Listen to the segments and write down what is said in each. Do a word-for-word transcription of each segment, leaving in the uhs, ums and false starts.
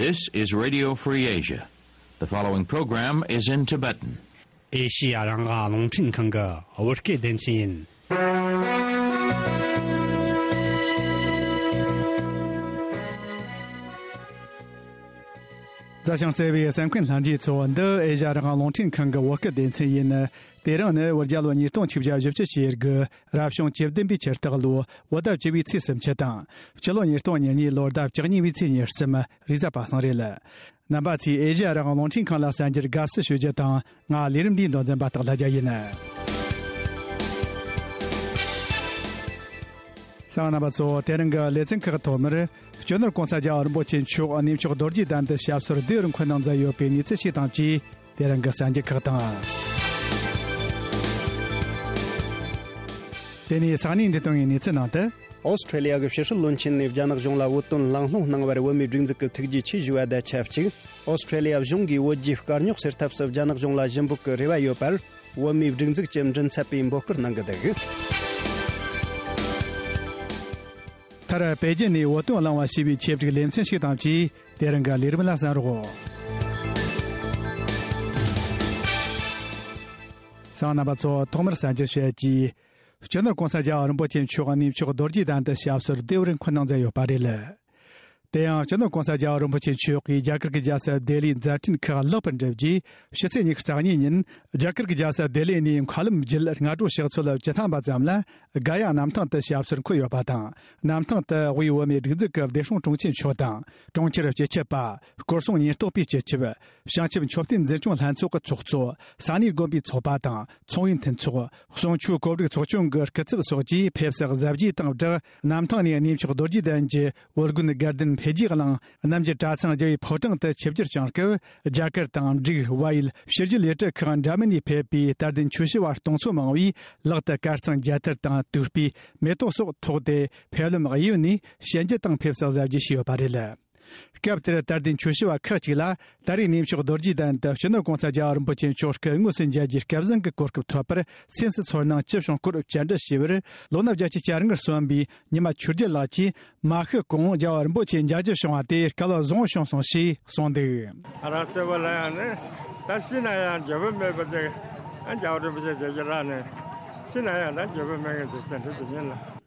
This is Radio Free Asia. The following program is in Tibetan. ཨེ་ཤི་ཡ་རང་དབང་རླུང་འཕྲིན་ཁང་གི་བོད་སྐད་སྡེ་ཚན་ཡིན། མཛའ་ཞིང་བརྩེ་བའི་གསན་མཁན་ལྷན་རྒྱས་ཚོ། འདི་ཨེ་ཤ་ཡ་རང་དབང་རླུང་འཕྲིན་ཁང་གི་བོད་སྐད་སྡེ་ཚན་ཡིན། དེ་རིང་ནི་བོད་རྒྱལ་ལོ་ཉིས་སྟོང་ཆིག་བརྒྱ་བཞི་བཅུ་ཞེ་དགུ་རབ་བྱུང་བཅུ་བདུན་པའི་ཆུ་སྟག་ལོ་བོད་ཟླ་བཅུ་བའི་ཚེས་སུམ་ཅུ་དང་། སྤྱི་ལོ་ཉིས་སྟོང་ཉེར་གཉིས་ལོར་ཟླ་བཅུ་གཉིས་པའི་ཚེས་ཉེར་གསུམ་རེས་གཟའ་པ་སངས་རེད། རྣམ་པ་ཚོས་ཨེ་ཤ་ཡ་རང་དབང་རླུང་འཕྲིན་ཁང་ལ་གསན་རྒྱུར་དགའ་བསུ་ཞུ་རྒྱུ་དང་། ང་ལས་རིམ་འདིའི་མདོ་འཛིན་པ་སྟག་ལྷ་རྒྱལ་ཡིན། གསན་པ་རྣམ་པ་ཚོ། དེ་རིང་གི་ལེ་ཚན་ཁག་ཐོག་མར། སྤྱི་ནོར་༸གོང་ས་༸རྒྱལ་བ་རིན་པོ་ཆེ་མཆོག་གནས་མཆོག་རྡོ་རྗེ་གདན་དུ་ཞབས་སོར་བདེ་བར་འཁོད་གནང་མཛད་ཡོད་པའི་གནས་ཚུལ་ཞིག་དང་བཅས། དེ་རིང་གི་གསར་འགྱུར་ཁག་དང་། དེ་ནས་ས་གནས་འདི་དང་གི་གནས་ཚུལ་ནང་དུ། ཨོ་སི་ཁྲེ་ལི་ཡ་གི་ཕྱི་སྲིད་བློན་ཆེན་ནས་རྒྱ་ནག་གཞུང་ལ་བོད་དོན་གླེང་སློང་གནང་བར་བོད་མིའི་སྒྲིག་འཛུགས་ཀྱི་ཐུགས་རྗེ་ཆེ་ཞུ་བ་དང་ཆབས་ཅིག་ཨོ་སི་ཁྲེ་ལི་ཡ་གཞུང་གིས་བོད་རྒྱའི་དཀའ་རྙོག་སེལ་ཐབས་སུ་རྒྱ་ནག་གཞུང་ལ་ཞུ་འབོད་ཀྱི་རེ་བ་ཡོད་པར། བོད་མིའི་སྒྲིག་འཛུགས་ཀྱི་མགྲིན་ཚབ་པས་འབོད་སྐུལ་གནང་གི་འདུག་མཐར་པེ་ཅིན་ནས་བོད་དོན་གླེང་བ་ཞེས་པའི་ཆེད་བསྒྲིགས་ལེ་ཚན་ཞིག་དང་བཅས། དེ་རིང་གི་ལས་རིམ་ལ་གསན་རོགས། གསན་པ་རྣམ་པ་ཚོ། ཐོག་མར་གསར་འགྱུར་བཤད་ཀྱིས། སྤྱི་ནོར་༸གོང་ས་༸རྒྱལ་བ་རིན་པོ་ཆེ་མཆོག་གནས་མཆོག་རྡོ་རྗེ་གདན་དུ་ཞབས་སོར་བདེ་བར་འཁོད་གནང་མཛད་ཡོད་པ་རེད། དེ་ཡང་སྤྱི་ནོར་༸གོང་ས་༸རྒྱལ་བ་རིན་པོ་ཆེ་མཆོག་གིས་རྒྱ་གར་གྱི་རྒྱལ་ས་ལྡི་ལིའི་མཛད་འཕྲིན་ཁག་ལེགས་པར་འགྲུབ་རྗེས། ཕྱི་ཚེས་ཉི་ཤུ་རྩ་གཉིས་ཉིན་རྒྱ་གར་གྱི་རྒྱལ་ས་ལྡི་ལི་ནས་མཁའ་ལམ་བརྒྱུད་སྔ་དྲོ་ཕྱག་ཚོད་བཅུ་ཐམ་པ་ཙམ་ལ་ག་ཡ་གནམ་ཐང་དུ་ཞབས་སོར་འཁོད་ཡོད་པ་དང་། གནམ་ཐང་དུ་དབུས་བོད་མིའི་སྒྲིག་འཛུགས་ཀྱི་བདེ་སྲུང་དྲུང་ཆེ་མཆོག་དང་། གྲོང་ཁྱེར་སྤྱི་ཁྱབ་པ། སྐོར་སྲུང་ཉེན་རྟོག་པའི་སྤྱི་ཁྱབ། བྱང་ཆུབ་མཆོད་རྟེན་འཛིན་སྐྱོང་ལྷན་ཚོགས་ཀྱི་ཚོགས་གཙོ། ས་གནས་དགོན་པའི་ཚོགས་པ་དང་། ཚོང་པའི་མཐུན་ཚོགས། གསུང་ཆོས་གོ་སྒྲིག་ཚོགས་ཆུང་གི་སྐུ་ཚབ་སོགས་ཀྱིས་ཕེབས་བསུ་གཟབ་རྒྱས་དང་སྦྲགས། གནམ་ཐང་ནས་གནས་མཆོག་རྡོ་རྗེ་གདན་གྱི་འོད་སྒོ་དགའ་ལྡན་འཕེལ་རྒྱས་གླིང་། གནམ་གྱི་གྲྭ་ཚང་རྒྱལ་བའི་ཕོ་བྲང་དུ་ཆིབས་བསྒྱུར་བསྐྱངས་སྐབས། རྒྱ་གར་དང་འབྲུག་བལ་ཡུལ་ཕྱི་རྒྱལ་ལས་གྲྭ་ཁག་འདྲ་མིན་ནས་ཕེབས་པའི་དད་ལྡན་ཆོས་ཞུ་བ་སྟོང་ཚོ་མང་བས། ལག་ཏུ་དཀར་གཙང་རྒྱ་ཐལ་དང་། དུག་སྤོས། མེ་ཏོག་སོགས་ཐོགས་ཏེ། ཕེབས་ལམ་གཡས་གཡོན་ནས་ཞལ་མཇལ་དང་ཕེབས་བསུ་གཟབ་རྒྱས་བྱས་ཡོད་པ་རེད། སྐབས་དེར་དད་ལྡན་ཆོས་ཞུ་བ་ཁག་ཅིག་ལ། ད་རེས་གནས་མཆོག་རྡོ་རྗེ་གདན་དུ་སྤྱི་ནོར་༸གོང་ས་༸རྒྱལ་བ་རིན་པོ་ཆེ་མཆོག་སྐུ་དངོས་སུ་མཇལ་རྒྱུའི་སྐལ་བཟང་གི་གོ་སྐབས་ཐོབ་པར། སེམས་སུ་ཚོར་སྣང་ཅི་བྱུང་སྐོར་བཅར་འདྲི་ཞུས་པར། ལོ་ན་བརྒྱད་ཅུ་གྱ་ལྔར་སོན་པའི་ཉི་མ་ཆོས་རྒྱལ་ལགས་ཀྱིས། མ་ཤི་གོང་རྒྱལ་བ་རིན་པོ་ཆེ་མཇལ་རྒྱུ་བྱུང་བ་དེ་སྐལ་བ་བཟང་བོ་བྱུང་སོང་ཞེས་གསུངས་འདུག་ང་རང་གཙོ་བོ་ལ་ཡང་ནི། ད་ཤི་ན་ཡང་འགྱོད་པ་མེད་པ་ཅིག་ཨ་རྒྱལ་བ་རིན་པོ་ཆེ་མཇལ་རྒྱུ་རག་ནས། ཤི་ན་ཡང་ད་འགྱོད་པ་མེད་མཁན་ཅིག་དེ་འདྲ་ཅིག་ཡིན་ལ།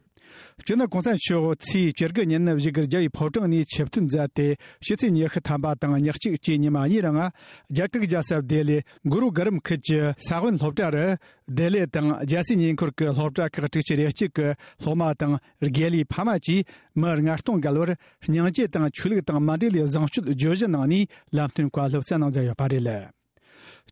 སྤྱི་ནོར་༸གོང་ས་མཆོག་ཚེས་བཅུ་དགུ་ཉིན་བཞུགས་སྒར་རྒྱལ་བའི་ཕོ་བྲང་ནས་ཆིབས་ཐོན་མཛད་དེ། ཕྱི་ཚེས་ཉི་ཤུ་ཐམ་པ་དང་ཉི་གཅིག་བཅས་ཉི་མ་གཉིས་རིང་། རྒྱ་གར་རྒྱལ་ས་ལྡི་ལི་གུ་རུ་གྷ་རམ་ཁུལ་གྱི་ས་བོན་སློབ་གྲྭ་རུ། ལྡི་ལི་དང་རྒྱལ་སའི་ཉེ་འཁོར་གྱི་སློབ་གྲྭ་ཁག་དྲུག་ཅུ་རེ་གཅིག་གི་སློབ་མ་དང་། དགེ་ལས་ཕ་མ་བཅས་མི་ལྔ་སྟོང་བརྒལ་བར། སྙིང་རྗེ་དང་ཆོས་ལུགས་དང་མ་འབྲེལ་བའི་བཟང་སྤྱོད་བརྗོད་གཞི་གནང་ནས། ལམ་སྟོན་བཀའ་སློབ་སྩལ་གནང་མཛད་ཡོད་པ་རེད།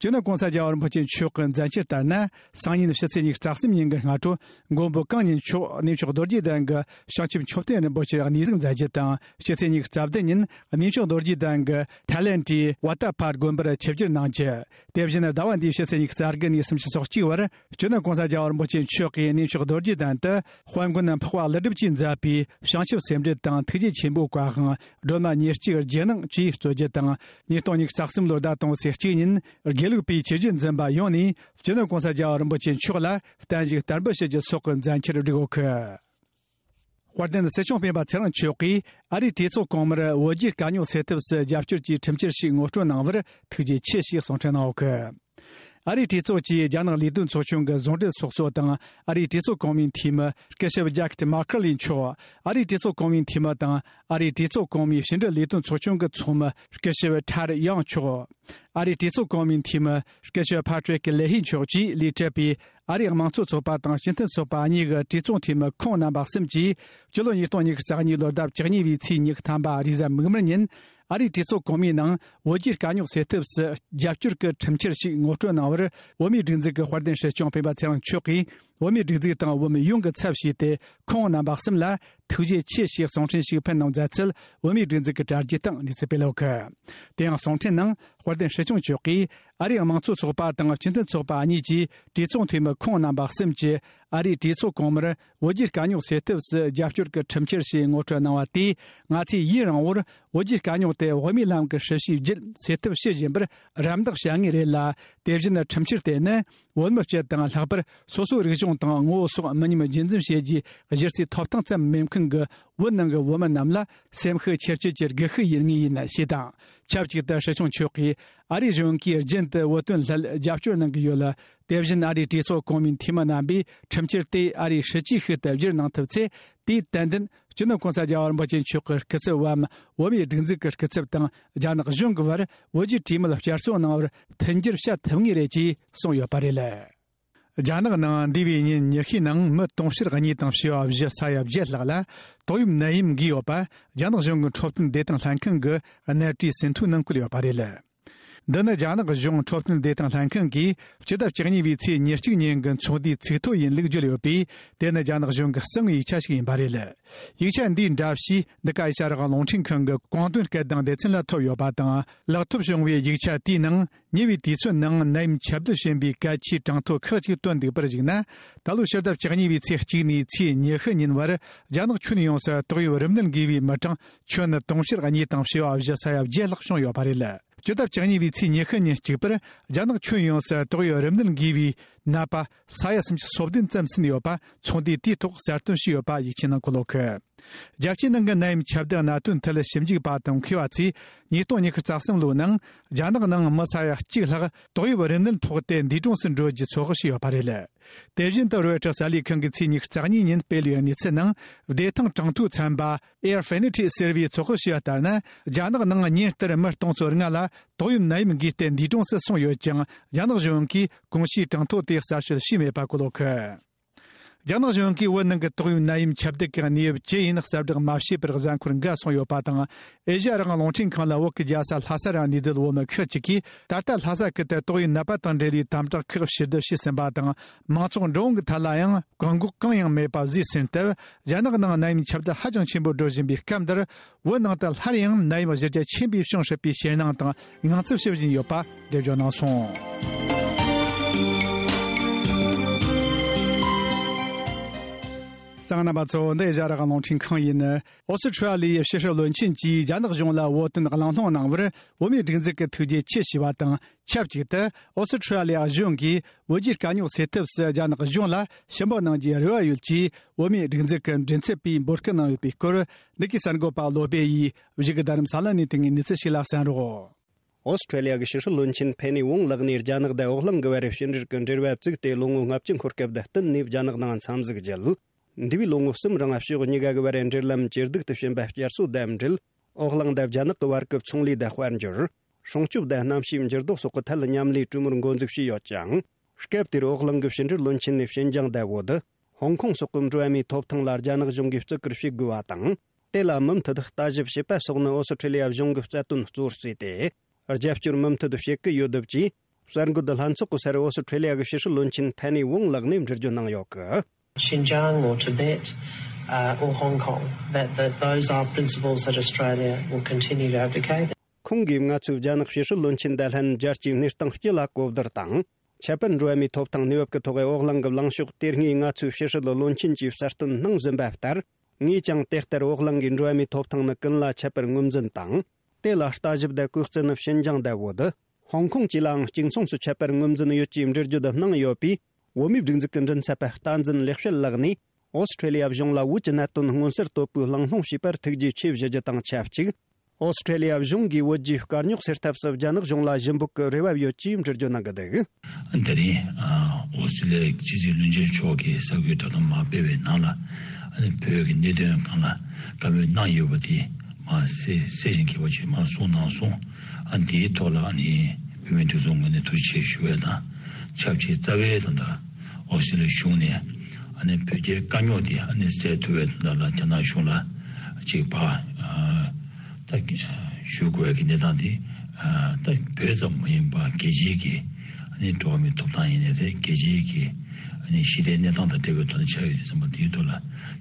སྤྱི་ནོར་༸གོང་ས་༸རྒྱལ་བ་རིན་པོ་ཆེ་མཆོག་གི་མཛད་འཆར་ལྟར་ན། སང་ཉིན་ཕྱི་ཚེས་ཉི་ཤུ་རྩ་གསུམ་ཉིན་གྱི་སྔ་དྲོ། མགོན་པོ་གང་ཉིད་མཆོག་གནས་མཆོག་རྡོ་རྗེ་གདན་གྱི་བྱང་ཆུབ་མཆོད་རྟེན་རིན་པོ་ཆེར་གནས་གཟིགས་མཛད་རྒྱུ་དང་། ཕྱི་ཚེས་ཉི་ཤུ་རྩ་བདུན་ཉིན་གནས་མཆོག་རྡོ་རྗེ་གདན་གྱི་ཐའི་ལེན་ཌིའི་ཝ་ཏ་ཕར་དགོན་པར་ཆིབས་བསྒྱུར་གནང་རྒྱུ། དེ་བཞིན་ཟླ་བ་འདིའི་ཕྱི་ཚེས་ཉི་ཤུ་རྩ་དགུ་ནས་སུམ་ཅུ་སོ་གཅིག་བར། སྤྱི་ནོར་༸གོང་ས་༸རྒྱལ་བ་རིན་པོ་ཆེ་མཆོག་གིས་གནས་མཆོག་རྡོ་རྗེ་གདན་དུ། དཔལ་མགོན་འཕགས་པ་ཀླུ་སྒྲུབ་ཀྱིས་མཛད་པའི་བྱང་ཆུབ་སེམས་འགྲེལ་དང་ཐུགས་རྗེ་ཆེན་པོའི་བཀའ་དབང་། སྒྲོལ་མ་ཉེར་གཅིག་རྗེས་གནང་བཅས་སྩོལ་རྒྱུ་དང་། ཉིས་སྟོང་ཉི་ཤུ་རྩ་གསུམ་ལོའི་ཟླ་དང་པོའི་ཚེས་གཅིག་ཉིན། དགེ་ལུགས་པའི་ཆོས་བརྒྱུད་འཛིན་པ་ཡོངས་ནས་སྤྱི་ནོར་༸གོང་ས་༸རྒྱལ་བ་རིན་པོ་ཆེ་མཆོག་ལ་བརྟན་བཞུགས་བསྟར་འབུལ་ཞུ་རྒྱུ་སོགས་ཀྱི་མཛད་འཆར་བསྒྲིགས་ཡོད་ཀི། དཔལ་ལྡན་སྲིད་སྐྱོང་སྤེན་པ་ཚེ་རིང་མཆོག་གིས་ཨ་རིའི་གྲོས་ཚོགས་གོང་མར་བོད་རྒྱའི་དཀའ་རྙོག་སེལ་ཐབས་སུ་རྒྱབ་སྐྱོར་གྱི་ཁྲིམས་འཆར་ཞིག་ངོ་སྤྲོད་གནང་བར་ཐུགས་རྗེ་ཆེ་ཞེས་གསུང་འཕྲིན་གནང་ཡོད་ཀི། ཨ་རིའི་གྲོས་ཚོགས་ཀྱི་རྒྱ་ནག་ལས་དོན་ཚོགས་ཆུང་གི་ཟུང་འབྲེལ་ཚོགས་གཙོ་དང་ཨ་རིའི་གྲོས་ཚོགས་གོང་མའི་འཐུས་མི་སྐུ་ཞབས་ཇེ་ཀེབ་མར་ཁེ་ལི་མཆོག་ཨ་རིའི་གྲོས་ཚོགས་གོང་མའི་འཐུས་མི་དང་ཨ་རིའི་གྲོས་ཚོགས་གོང་མའི་ཕྱི་འབྲེལ་ལས་དོན་ཚོགས་ཆུང་གི་ཚོགས་མི་སྐུ་ཞབས་ཁྲ་རི་ཡང་མཆོག་ཨ་རིའི་གྲོས་ཚོགས་གོང་མའི་འཐུས་མི་སྐུ་ཞབས་ཕ་ཏྲིག་ལེ་ཧི་མཆོག་བཅས་ལས་བྲལ་བའི་ཨ་རིའི་དམངས་གཙོ་ཚོགས་པ་དང་སྤྱི་མཐུན་ཚོགས་པ་གཉིས་ཀྱི་གྲོས་ཚོགས་འཐུས་མི་ཁོང་རྣམ་པ་གསུམ་གྱིས་སྤྱི་ལོ་ཉིས་སྟོང་ཉི་ཤུ་རྩ་གཉིས་ལོའི་ཟླ་བཅུ་གཉིས་པའི་ཚེས་ཉི་ཤུ་ཐམ་པ་རེས་གཟའ་མིག་དམར་ཉིན། ཨ་རིའི་གྲོས་ཚོགས་གོང་མའི་ནང་བོད་རྒྱའི་དཀའ་རྙོག་སེལ་ཐབས་སུ་རྒྱབ་སྐྱོར་གྱི་ཁྲིམས་འཆར་ཞིག་ངོ་སྤྲོད་གནང་བར། བོད་མིའི་སྒྲིག་འཛུགས་ཀྱི་དཔལ་ལྡན་སྲིད་སྐྱོང་སྤེན་པ་ཚེ་རིང་མཆོག་གིས། བོད་མིའི་སྒྲིག་འཛུགས་དང་བོད་མི་ཡོངས་ཀྱི་ཚབ་བྱས་ཏེ། ཁོང་རྣམ་པ་གསུམ་ལ་ཐུགས་རྗེ་ཆེ་ཞེས་གསུང་འཕྲིན་ཞིག་ཕུལ་གནང་མཛད་ཚུལ། བོད་མིའི་སྒྲིག་འཛུགས་ཀྱི་དྲ་རྒྱའི་སྟེང་གནས་ཚུལ་སྤེལ་ཡོད་ཀི། དེ་ཡང་གསུང་འཕྲིན་ནང་། དཔལ་ལྡན་སྲིད་སྐྱོང་མཆོག་གིས། ཨ་རིའི་དམངས་གཙོ་ཚོགས་པ་དང་སྤྱི་མཐུན་ཚོགས་པ་གཉིས་ཀྱི་གྲོས་ཚོགས་འཐུས་མི་ཁོང་རྣམ་པ་གསུམ་གྱིས། ཨ་རིའི་གྲོས་ཚོགས་གོང་མར། བོད་རྒྱའི་དཀའ་རྙོག་སེལ་ཐབས་སུ་རྒྱབ་སྐྱོར་གྱི་ཁྲིམས་འཆར་ཞིག་ངོ་སྤྲོད་གནང་བ་དེས། ང་ཚོས་ཡུན་རིང་བོར་བོད་རྒྱའི་དཀའ་རྙོག་དེ་དབུ་མའི་ལམ་གྱི་སྲིད་བྱུས་བརྒྱུད་སེལ་ཐབས་བྱེད་བཞིན་པར་རམ་འདེགས་བྱ་ངེས་རེད་ལ། དེ་བཞིན་ཁྲིམས་འཆར་དེ་ནི་ བོད་མི་སྤྱི་དང་ལྷག་པར་སོ་སོའི་རིག་གཞུང་དང་ངོ་བོ་སོགས་མི་ཉམས་རྒྱུན་འཛིན་བྱེད་རྒྱུའི་གཞི་རྩའི་ཐོབ་ཐང་ཙམ་མེད་མཁན་གྱི་བོད་ནང་གི་བོད་མི་རྣམས་ལ་སེམས་ཤུགས་ཆེར་སྐྱེད་ཀྱི་སྒུལ་ཤུགས་ཡིན་ངེས་ཡིན་ཞེས་དང་། ཆབས་ཅིག་ཏུ་སྲིད་སྐྱོང་མཆོག་གིས་ཨ་རིའི་གཞུང་གིས་རྒྱུན་དུ་བོད་དོན་སླད་རྒྱབ་སྐྱོར་གནང་གི་ཡོད་ལ། དེ་བཞིན་ཨ་རིའི་གྲོས་ཚོགས་གོང་མའི་འཐུས་མི་རྣམ་པས་ཁྲིམས་འཆར་དེ་ཨ་རིའི་སྲིད་ཇུས་ཤིག་ཏུ་བསྒྱུར་གནང་ཐུབ་ཚེ། དེས་ཏན་ཏན་སྤྱི་ནོར་གོང་ས་རྒྱལ་བ་རིན་པོ་ཆེ་མཆོག་གི་སྐུ་ཚབ་བམ་བོད་མིའི་སྒྲིག་འཛུགས་ཀྱི་སྐུ་ཚབ་དང་རྒྱ་ནག་གཞུང་གི་བར་བོད་རྒྱའི་གྲོས་མོལ་བསྐྱར་གསོ་གནང་བར་མཐུན་འགྱུར་བྱ་ཐུབ་ངེས་རེད་ཅེས་གསུངས་ཡོད་པ་རེད། རྒྱ་ནག་ནང་འདས་པའི་ཉིན་ཉི་ཤུའི་ནང་མི་དུང་ཕྱུར་གཉིས་དང་བྱེ་བ་བཞི་ས་ཡ་བརྒྱད་ལྷག་ལ་ཏོག་དབྱིབས་ནད་ཡམས་འགོས་ཡོད་པ་རྒྱ་ནག་གཞུང་གི་འཕྲོད་བསྟེན་བདེ་ཐང་ལྷན་ཁང་གི་གནད་བཀྲིས་ཟིན་ཐོའི་ནང་བཀོད་ཡོད་པ་རེད། འདི་ནི་རྒྱ་ནག་གཞུང་འཕྲོད་བསྟེན་བདེ་ཐང་ལྷན་ཁང་གིས་སྤྱི་ཟླ་བཅུ་གཉིས་པའི་ཚེས་ཉེར་གཅིག་ཉིན་གྱི་ཚོགས་འདུའི་ཚིག་ཐོ་ཡིན་ལུགས་བརྗོད་ཡོད་པས། དེ་ནི་རྒྱ་ནག་གཞུང་གི་གསང་བའི་ཡིག་ཆ་ཞིག་ཡིན་པ་རེད། ཡིག་ཆ་འདིའི་འདྲ་བཤུས་འདི་ག་ཨེ་ཤ་ཡ་རང་དབང་རླུང་འཕྲིན་ཁང་གི་གོང་དོན་སྐད་གདངས་སྡེ་ཚན་ལ་ཐོབ་ཡོད་པ་དང་། ལག་ཐོབ་བྱུང་བའི་ཡིག་ཆ་དེའི་ནང་ཉེ་བའི་དུས་ཚོད་ནང་ནད་ཡམས་ཁྱབ་གདལ་བྱིན་པའི་གལ་ཆེའི་གྲངས་ཐོ་ཁག་ཅིག་བཏོན་འདུག་པར་གཞིགས་ན། ད་ལོའི་ཕྱི་ཟླ་བཅུ་གཉིས་པའི་ཚེས་གཅིག་ནས་ཚེས་ཉི་ཤུ་ཉིན་བར་རྒྱ་ནག་ཁྱོན་ཡོངས་སུ་ཏོག་དབྱིབས་རིམས་ནད་འགོས་པའི་མི་གྲངས་ཁྱོན་ནི་དུང་ཕྱུར་གཉིས་དང་བྱེ་བ་བཞི་ས་ཡ་བརྒྱད་ལྷག་བྱུང་ཡོད་པ་རེད། སྤྱི་ཟླ་བཅུ་གཉིས་པའི་ཚེས་ཉི་ཤུ་ཉིན་གཅིག་པར་རྒྱ་ནག་ཁྱོན་ཡོངས་སུ་ཏོག་དབྱིབས་རིམས་ནད་འགོས་པའི་ནད་པ་ས་ཡ་སུམ་ཅུ་སོ་བདུན་ཙམ་ཟིན་ཡོད་པ་ཚོགས་འདུའི་དུས་ཐོག་གསལ་སྟོན་བྱས་ཡོད་པ་ཡིག་ཆའི་ནང་འཁོད་ཡོད། རྒྱལ་སྤྱིའི་ནང་གི་ནད་ཡམས་ཁྱབ་གདལ་གནད་དོན་ཐད་ཞིབ་འཇུག་པ་དང་མཁས་པ་ཚོས་ཉིས་སྟོང་ཉི་ཤུ་རྩ་གསུམ་ལོའི་ནང་རྒྱ་ནག་ནང་མི་ས་ཡ་གཅིག་ལྷག་ཏོག་དབྱིབས་རིམས་ནད་ཕོག་སྟེ་འདས་གྲོངས་སུ་འགྲོ་རྒྱུའི་ཚོད་དཔག་བྱས་ཡོད་པ་རེད། དེ་བཞིན་དུ་རོའི་ཊར་གསར་ལས་ཁང་གིས་ཚེས་ཉི་ཤུ་རྩ་གཉིས་ཉིན་སྤེལ་བའི་གནས་ཚུལ་ནང་བདེ་ཐང་གྲངས་ཐོའི་ཚན་པ་Airfinity ཟེར་བས་ཚོད་དཔག་བྱས་པ་ལྟར་ན། རྒྱ་ནག་ནང་ཉིན་ལྟར་མི་སྟོང་ཚོ་ལྔ་ལ་ཏོག་དབྱིབས་ནད་ཡམས་འགོས་ཏེ་འདས་གྲོངས་སུ་སོང་ཡོད་ཀྱང་། རྒྱ་ནག་གཞུང་གིས་གོང་ཞུས་གྲངས་ཐོ་དེ་གསལ་བཤད་བྱས་མེད་པ་བཀོད་ཡོད། རྒྱ་ནག་གཞུང་གིས་བོད་ནང་གི་ཏོག་དབྱིབས་ནད་ཡམས་ཁྱབ་གདལ་གྱི་གནས་བབ་ཇི་ཡིན་གསལ་བསྒྲགས་མ་བྱས་པར་གཟའ་འཁོར་འགའ་སོང་ཡོད་པ་དང་། ཨེ་ཤ་ཡ་རང་དབང་རླུང་འཕྲིན་ཁང་ལ་བོད་ཀྱི་རྒྱལ་ས་ལྷ་ས་རང་གནས་སྡོད་བོད་མི་ཁག་ཅིག་གིས་ད་ལྟ་ལྷ་ས་ཁུལ་དུ་ཏོག་དབྱིབས་ནད་པ་དང་འབྲེལ་བའི་དམ་དྲག་ཁག་ཕྱིར་བསྡུ་བྱས་ཟིན་པ་དང་། མང་ཚོགས་འགྲོ་འོང་གི་ཐད་ལ་ཡང་བཀག་འགོག་གང་ཡང་མེད་པ་བཟོས་ཟིན་སྟབས། རྒྱ་ནག་ནང་ནད་ཡམས་ཁྱབ་གདལ་ཧ་ཅང་ཆེན་པོ་འགྲོ་བཞིན་པའི་སྐབས་འདིར། བོད་ནང་དུ་སླར་ཡང་ནད་ཡམས་གཞི་རྒྱ་ཆེན་པོས་བྱུང་སྲིད་པའི་ཞེད་སྣང་དང་ངང་ཚུལ་ཞིག་བཞིན་ཡོད་པ་འགྲེལ་བརྗོད་གནང་སོང་། གསན་མཁན་རྣམ་པ་ཚོ། འདི་ཨེ་ཤ་ཡ་རང་དབང་རླུང་འཕྲིན་ཁང་ཡིན། ཨོ་སི་ཁྲུ་ལི་ཡའི་ཕྱི་སྲིད་བློན་ཆེན་གྱིས་རྒྱ་ནག་གཞུང་ལ་བོད་དོན་གླེང་སློང་གནང་བར་བོད་མིའི་སྒྲིག་འཛུགས་ཀྱི་ཐུགས་རྗེ་ཆེ་ཞུས་པ་དང་། ཆབས་ཅིག་ཏུ་ཨོ་སི་ཁྲུ་ལི་ཡ་གཞུང་གིས་བོད་རྒྱའི་དཀའ་རྙོག་སེལ་ཐབས་སུ་རྒྱ་ནག་གཞུང་ལ་ཞུ་འབོད་གནང་རྒྱུའི་རེ་བ་ཡོད་ཅེས་བོད་མིའི་སྒྲིག་འཛུགས་ཀྱི་མགྲིན་ཚབ་པས་འབོད་སྐུལ་གནང་ཡོད་པའི་སྐོར། འདི་གའི་གསར་འགོད་པ་བློ་སྦེ་ཡིས་བཞུགས་སྒར་རྡ་རམ་ས་ལ་ནས་དེ་སྔའི་གནས་ཚུལ་ཞིག་ལ་གསན་རོགས། ཨོ་སི་ཁྲུ་ལི་ཡ་གི་ཕྱི་སྲིད་བློན་ཆེན་ཕེ་ནི་ཝུང་ལགས་ནས་རྒྱ་ནག་དང་འོག་གླིང་གི་བར་ཕྱི་འབྲེལ་གྱི་འབྲེལ་བ་བཙུགས་ཏེ་ལོ་ངོ་ལྔ་བཅུ་འཁོར་སྐབས་དང་བསྟུན་ནས་རྒྱ་ནག་ནང་འཚམས་གཟིགས་བརྒྱུད། འདས་པའི་ལོ་ངོ་གསུམ་རིང་ཕྱོགས་གཉིས་ཀ་གི་བར་འབྲེལ་ལམ་ཇེ་སྡུག་ཏུ་ཕྱིན་པ་བསྐྱར་གསོ་དང་འབྲེལ། འོག་གླིང་དང་རྒྱ་ནག་གི་བར་གྱི་ཚོང་ལས་དང་དཔལ་འབྱོར། སྲུང་སྐྱོབ་དང་གནམ་གཤིས་འགྱུར་ལྡོག་སོགས་ཀྱི་ཐད་མཉམ་ལས་གྲོས་མོལ་འགོ་འཛུགས་བྱས་ཡོད་ཅིང་། སྐབས་དེར་འོག་གླིང་གི་ཕྱི་འབྲེལ་བློན་ཆེན་ནས་ཞིན་ཅང་དང་བོད། ཧོང་ཀོང་སོགས་ཀྱི་འགྲོ་བ་མིའི་ཐོབ་ཐང་ལ་རྒྱ་ནག་གཞུང་གིས་བརྩི་བཀུར་བྱེད་དགོས་པ་དང་། དེ་ལ་མུ་མཐུད་ལྟ་ཞིབ་བྱེད་པ་སོགས་ནི་ཨོ་སི་ཁྲུ་ལི་ཡ་གཞུང་གི་རྩ་དོན་གཙོ་བོར་བརྩིས་ཏེ། རྒྱབ་སྐྱོར་མུ་མཐུད་བྱེད་ཀྱི་ཡོད་འདུག་ཅེས་གསར་འགོད་ལྷན་ཚོགས་ཀྱི་སར་ཨོ་སི་ཁྲུ་ལི་ཡ་གི་ཕྱི་སྲིད་བློན་ཆེན་ཕེ་ནི་ཝུང་ལགས་ནས་འགྲེལ་བརྗོད་གནང་ཡོད་གི། Xinjiang or Tibet, uh, or Hong Kong, that, that those are principles that Australia will continue to advocate. ཁོང་གིས་ང་ཚོས་རྒྱ་ནག་ཕྱི་སྲིད་བློན་ཆེན་དང་ལྷན་རྒྱལ་སྤྱིའི་གནས་སྟངས་སྤྱི་ལ་གོ་བསྡུར་དང་། ཁྱད་པར་འགྲོ་བ་མིའི་ཐོབ་ཐང་གནས་བབ་ཀྱི་ཐོག་འོག་གླིང་གི་ལངས་ཕྱོགས་དེ་སྔའི་ང་ཚོའི་ཕྱི་སྲིད་བློན་ཆེན་གྱིས་གསལ་སྟོན་གནང་བཞིན་པ་ལྟར། ངས་ཀྱང་དེ་ལྟར་འོག་གླིང་གིས་འགྲོ་བ་མིའི་ཐོབ་ཐང་ནི་ཀུན་ལ་ཁྱད་པར་ངོས་འཛིན་དང་། དེ་ལ་ལྟ་ཞིབ་དང་གུས་བརྩི་ནི་ཞིན་ཅང་དང་བོད། ཧོང་ཀོང་བཅས་ལའང་གཅིག་མཚུངས་སུ་ཁྱད་པར་ངོས་འཛིན་ཡོད་ཅེས་འགྲེལ་བརྗོད་གནང་ཡོད་པས། བོད་མིའི་སྒྲིག་འཛུགས་ཀྱི་མགྲིན་ཚབ་པ་བསྟན་འཛིན་ལེགས་བཤད་ལགས་ནས། ཨོ་སི་ཁྲུ་ལི་ཡ་གཞུང་ལ་བོད་ཀྱི་གནད་དོན་མངོན་གསལ་དོད་པོས་གླེང་སློང་བྱས་པར་ཐུགས་རྗེ་ཆེ་ཞུ་རྒྱུ་དང་ཆབས་ཅིག་ཨོ་སི་ཁྲུ་ལི་ཡ་གཞུང་གིས་བོད་རྒྱའི་དཀའ་རྙོག་སེལ་ཐབས་སུ་རྒྱ་ནག་གཞུང་ལ་ཞུ་འབོད་ཀྱི་རེ་བ་ཡོད་ཅེས་འགྲེལ་བརྗོད་གནང་གི་འདུག་དེ་རིང་ཨོ་སི་ཁྲུ་ལི་ཡའི་ཕྱི་སྲིད་བློན་ཆེན་མཆོག་གིས་གསར་འགོད་བསྒྲགས་གཏམ་མར་སྤེལ་བའི་ནང་ལ། ཨ་ནི་བོད་ཀྱི་གནད་དོན་སྒང་ལ་བཀའ་མོལ་གནང་ཡོད་པ་དེ་མར་གསལ་གསལ་ཞིང་གསལ་བ་ཅིག་མར་གསུངས་གནང་སོང་། ཨ་ནི་དེའི་ཐོག་ལ་ཨ་ནི་བོད་མིའི་སྒྲིག་འཛུགས་ངོས་ནས་ཐུགས་རྗེ་ཆེ་ཞུ་བའི་དང་། ཆབས་ཅིག་རྩ་བའི་དོན་དག་ཨོ་སི་ཁྲུ་ལི་ཡའི་གཞུང་ནས་ཨ་ནི་བོད་རྒྱའི་དཀའ་རྙོག་དེ་ཨ་ནི་སེལ་ཐུབ་པའི་དོན་དག་ལ་རྒྱ་ནག་གཞུང་ལ་ཅིག་ཕར་ཨ་ད་ཞུ་དགོས་ཀྱི་གནས་སྟངས་དེ། ཨ་ད་བོད་ཙམ་མ་ཡིན་པར་རྒྱལ་སྤྱིའི་གི་ཨ་ནི་འགྲོ་བ་མིའི་ཐོབ་ཐང་ཡིན་ནའི་རེད། རྒྱལ་སྤྱིའི་གི་ཨ་ནི་ཞི་བདེའི་གནས་སྟངས་དང་འབྲེལ་བའི་ཐོག་ནས་ཆགས་ཡོད་དུས་ཙམ་པ་དེའི་ཐོག་ལ་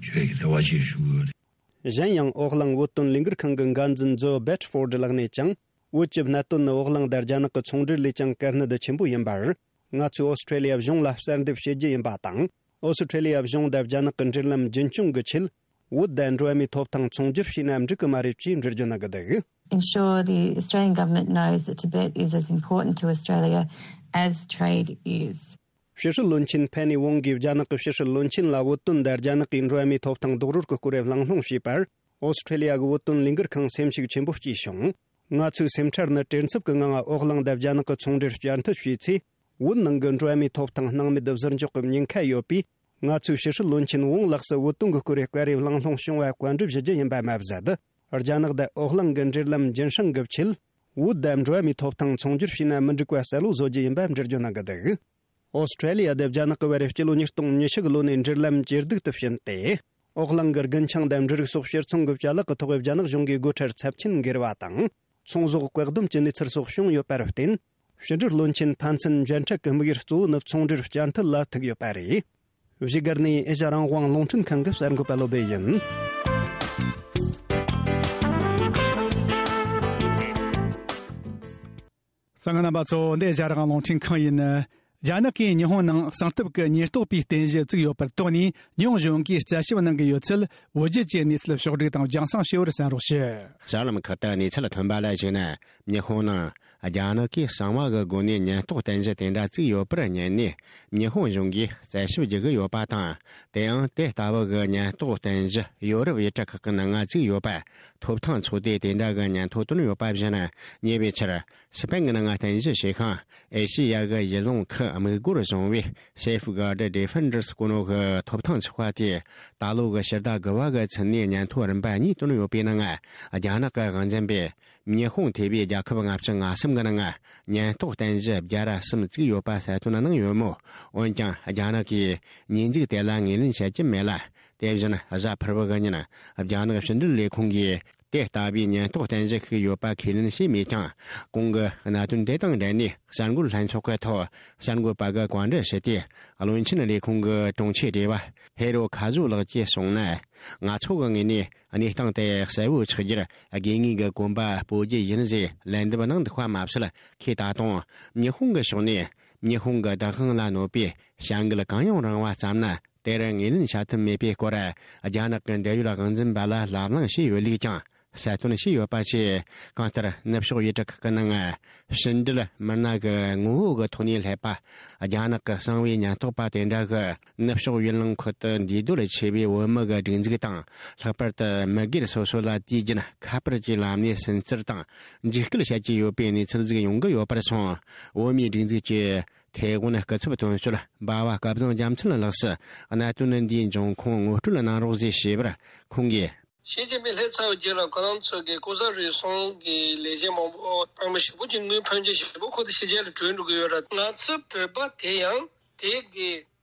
ཞུ་ཡས་ཀྱི་རེ་བ་ཅིག་ཞུ་གི་ཡོད་རེད། གཞན་ཡང་འོག་གླིང་བོད་དོན་ལས་འགུལ་ཁང་གི་འགན་འཛིན་ཛོ་སྦེད་ཕོར་ཌི་ལགས་ནས་ཀྱང་། བོད་ཀྱི་གནད་དོན་ནི་འོག་གླིང་དང་རྒྱ་ནག་གི་ཚོང་འབྲེལ་ལས་ཀྱང་གལ་གནད་ཆེན་པོ་ཡིན་པར། ང་ཚོས་ཨོ་སི་ཁྲུ་ལི་ཡ་གཞུང་ལ་གསལ་འདེབས་བྱེད་རྒྱུ་ཡིན་པ་དང་། ཨོ་སི་ཁྲུ་ལི་ཡ་གཞུང་དང་རྒྱ་ནག་གི་འབྲེལ་ལམ་རྒྱུན་སྐྱོང་གི་ཆེད། བོད་དང་འགྲོ་བ་མིའི་ཐོབ་ཐང་ཚོང་སྒྱུར་བྱས་ན་འགྲིག་གི་མ་རེད་ཅེས་འགྲེལ་བརྗོད་གནང་གི་འདུག Ensure the Australian government knows that Tibet is as important to Australia as trade is. ཕྱི་སྲིད་བློན་ཆེན་ཕེ་ནི་ཝོང་གིས་རྒྱ་ནག་གི་ཕྱི་སྲིད་བློན་ཆེན་ལ་བོད་དོན་དང་རྒྱ་ནག་གི་འགྲོ་བ་མིའི་ཐོབ་ཐང་རྡོག་རོལ་གྱི་སྐོར་གླེང་སློང་བྱས་པར། ཨོ་སི་ཁྲེ་ལི་ཡ་གི་བོད་དོན་ལས་འགུལ་ཁང་སེམས་ཤུགས་ཆེན་པོ་སྐྱེས་བྱུང་། ང་ཚོའི་སེམས་ཁྲལ་ནི་བྲེལ་འཚུབ་ཀྱི་ངང་ཨོ་གླིང་དང་རྒྱ་ནག་གི་ཚོང་འབྲེལ་བསྐྱར་མཐུད་བྱས་ཚེ། བོད་ནང་གི་འགྲོ་བ་མིའི་ཐོབ་ཐང་སྣང་མེད་དུ་ཟུར་འཇོག་གི་ཉེན་ཁ་ཡོད་པས། ང་ཚོས་ཕྱི་སྲིད་བློན་ཆེན་ཝང་ལགས་སུ་བོད་དོན་གྱི་སྐོར་བཀའ་རེ་གླེང་སློང་བྱུང་བ་བཀའ་འདྲི་ཞུ་རྒྱུ་ཡིན་པ་མ་ཟད། རྒྱ་ནག་དང་ཨོ་གླིང་གི་འབྲེལ་ལམ་རྒྱུན་བསྲིང་གི་ཆེད། བོད་དང་འགྲོ་བ་མིའི་ཐོབ་ཐང་ཚོང་སྒྱུར་བྱས་ན་མི་འགྲིག་པ་གསལ་བོ་བཟོ་རྒྱུ་ཡིན་པ་འགྲེལ་བརྗོད་གནང་གི་འདུག་ཨོ་སི་ཁྲེ་ལི་ཡ་དང་རྒྱ་ནག་གི་བར་སྤྱི་ལོ་ཉིས་སྟོང་ཉི་ཤུ་གི་ལོ་ནས་འབྲེལ་ལམ་ཇེ་སྡུག་ཏུ་ཕྱིན་ཏེ། ཨོ་གླིང་གི་རྒུན་ཆང་དང་འབྲུ་རིགས་སོགས་ཕྱིར་ཚོང་གི་བྱ་ལག་གི་ཐོག་རྒྱ་ནག་གཞུང་གིས་སྒོ་ཁྲལ་ཚབས་ཆེན་འགེལ་བ་དང་། ཚོང་ཟོག་བཀག་སྡོམ་གྱི་གནས་ཚུལ་སོགས་བྱུང་ཡོད་པར་བརྟེན། ཕྱི་འབྲེལ་བློན་ཆེན་ཕན་ཚུན་མཇལ་འཕྲད་ཀྱི་དམིགས་ཡུལ་གཙོ་བོ་ནི་ཚོང་འབྲེལ་བསྐྱར་མཐུད་ལ་ཐུག་ཡོད་པ་རེད། བཞུགས་སྒར་ནས་ཨེ་ཤ་རང་དབང་རླུང་འཕྲིན་ཁང་གི་གསར་འགོད་པ་བློ་བྷེ་ཡིན། གསན་མཁན་རྣམ་པ་ཚོ། འདི་ཨེ་ཤ་རང་དབང་རླུང་འཕྲིན་ཁང་ཡིན། རྒྱ་ནག་གིས་ཉི་ཧོང་ནང་གསང་སྟབས་ཀྱི་ཉེན་རྟོག་པའི་རྟེན་གཞི་བཙུགས་ཡོད་པར་དོགས་ནས། ཉི་ཧོང་གཞུང་གིས་རྩད་ཞིབ་གནང་གི་ཡོད་ཚུལ། བོད་བརྒྱུད་ཀྱི་གནས་ཚུལ་ཕྱོགས་བསྒྲིགས་དང་རྒྱང་སྲིང་བྱས་པར་གསན་རོགས་ཞུ། གསར་ལམ་ཁག་ཏུ་གནས་ཚུལ་ཐོན་པ་ལ་གཞིགས་ན། ཉི་ཧོང་ནང་རྒྱ་ནག་གིས་གསང་བ་གི་སྒོ་ནས་ཉེན་རྟོག་རྟེན་གཞི་དེ་འདྲ་བཙུགས་ཡོད་པར་ཉན་ནས། ཉི་ཧོང་གཞུང་གིས་རྩད་ཞིབ་བགྱི་གི་ཡོད་པ་དང་། དེའང་དེ་ལྟ་བུ་གི་ཉེན་རྟོག་རྟེན་གཞི་ཡོ་རོབ་ཡུལ་གྲུ་ཁག་གི་ནང་ང་བཙུགས་ཡོད་པ། ཐོབ་ཐང་ཚོགས་སྡེ་དེ་འདྲ་གི་ཉན་ཐོས་བཏོན་ཡོད་པ་བཞིན། ཉེ་བའི་ཆར། སི་པན་གྱི་ནང་རྟེན་གཞི་བྱེད་མཁན་ཨེ་ཤེ་ཡ་གི་ཡུལ་ལུང་ཁུལ་དམིགས་སྒོར་བཟུང་བའི་Safeguard Defenders སྐུ་ནོ་གི་ཐོབ་ཐང་ཚོགས་པ་དེས། ད་ལོ་གི་ཕྱི་ཟླ་དགུ་པ་གི་ཚུན་ནས་ཉན་ཐོས་རིམ་པ་གཉིས་བཏོན་ཡོད་པའི་ནང་། རྒྱ་ནག་གི་དབང་འཛིན་པས་ཉི་ཧོང་ཐེ་བའི་རྒྱལ་ཁབ་ལྔ་བཅུ་ང་གསུམ་གྱི་ནང་ཉེན་རྟོག་རྟེན་གཞི་བརྒྱ་ར་གསུམ་བཙུགས་ཡོད་པ་གསལ་སྟོན་གནང་ཡོད་མོད། འོན་ཀྱང་རྒྱ་ནག་གིས་ཉེས་འཛུགས་དེ་ལ་ངོས་ལེན་བྱེད་ཀྱི་མེད་ལ། དེ་བཞིན་གཟའ་ཕུར་བུ་གི་ཉིན་རྒྱ་ནག་ཕྱི་འབྲེལ་ལས་ཁུངས་ཀྱིས། དེ་ལྟ་བུའི་ཉེན་རྟོག་རྟེན་གཞི་ཞིག་ཡོད་པ་ཁས་ལེན་བྱས་མེད་ཀྱང་། གོང་གི་གནད་དོན་དེ་དང་འབྲེལ་ནས་གསར་འགོད་ལྷན་ཚོགས་ཀྱི་ཐོག་གསར་འགོད་པ་གིས་བཀའ་འདྲི་ཞུས་ཏེ། བློན་ཆེན་ལས་ཁུངས་ཀྱི་དྲུང་ཆེ་སྡེ་བ་ཧེ་རོ་ཁ་ཟུ་ལགས་ཀྱིས་གསུངས་ན། ང་ཚོ་གི་ངོས་ནས་གནས་སྟངས་དེ་གསལ་བོ་ཆགས་རྒྱུར་དགོས་ངེས་ཀྱི་གོམ་པ་སྤོ་རྒྱུ་ཡིན་ཟེར་ལན་འདེབས་གནང་འདུག་པ་མ་ཟད། ཁོས་ད་དུང་ཉི་ཧོང་གི་ཕྱོགས་ནས་ཉི་ཧོང་གི་བདག་དབང་ལ་གནོད་པའི་བྱ་འགུལ་གང་ཡང་རུང་བ་བརྩམས་ན། དེར་ངོས་ལེན་བྱ་ཐུབ་མེད་པའི་སྐོར། རྒྱ་ནག་གི་འབྲེལ་ཡོད་དབང་འཛིན་པ་ལ་ལབ་གླེང་བྱས་ཡོད་ལུགས་ཀྱང་གསལ་སྟོན་བྱས་ཡོད་པ་བཅས། གང་ལྟར་ནུབ་ཕྱོགས་ཡུལ་གྲུ་ཁག་གི་ནང་ཕྱི་འབྲེལ་མི་སྣ་གི་ངོ་བོ་གི་ཐོག་ནས་སླེབས་པ། རྒྱ་ནག་གི་གསང་བའི་ཉེན་རྟོག་པ་དེ་འདྲ་གིས་ནུབ་ཕྱོགས་ཡུལ་ལུང་ཁག་ཏུ་འདུས་སྡོད་བྱས་པའི་བོད་མི་གི་སྒྲིག་འཛུགས་དང་། ལྷག་པར་དུ་མི་སྒེར་སོ་སོ་ལ་དུས་རྒྱུན་ཁ་པར་གྱི་ལམ་ནས་སུན་གཙེར་དང་འཇིགས་སྐུལ་བྱེད་ཀྱི་ཡོད་པའི་གནས་ཚུལ་ཟིག་ཡོང་གི་ཡོད་པར་སོང་། བོད་མིའི་སྒྲིག་འཛུགས་ཀྱི་ཐའེ་ཝན་སྐུ་ཚབ་དོན་གཅོད་འབའ་བ་སྐལ་བཟང་རྒྱལ་མཚན་ལགས་སུ་གནད་དོན་འདིའི་འབྱུང་ཁུངས་ངོ་སྤྲོད་གནང་རོགས་ཞེས་ཞུས་པར་ཁོང་གིས། ཞི་ཅིན་ཕིང་སླེབས་ཚར་བའི་རྗེས་ལ་ཁོ་རང་ཚོ་གི་ལྐོག་ཟ་རུལ་སུངས་ཀྱི་ལས་བྱེད་མང་པོ་དཔང་པོ་ཞེ་པོ་ཅིག་དངུལ་ཕོན་ཆེ་ཞེ་པོ་ཁོ་ཚོ་ཕྱི་རྒྱལ་ལ་བྲོས་འགྲོ་གི་ཡོད་ར། ང་ཚོ་བོད་པ་དེ་ཡང་དེ་གི་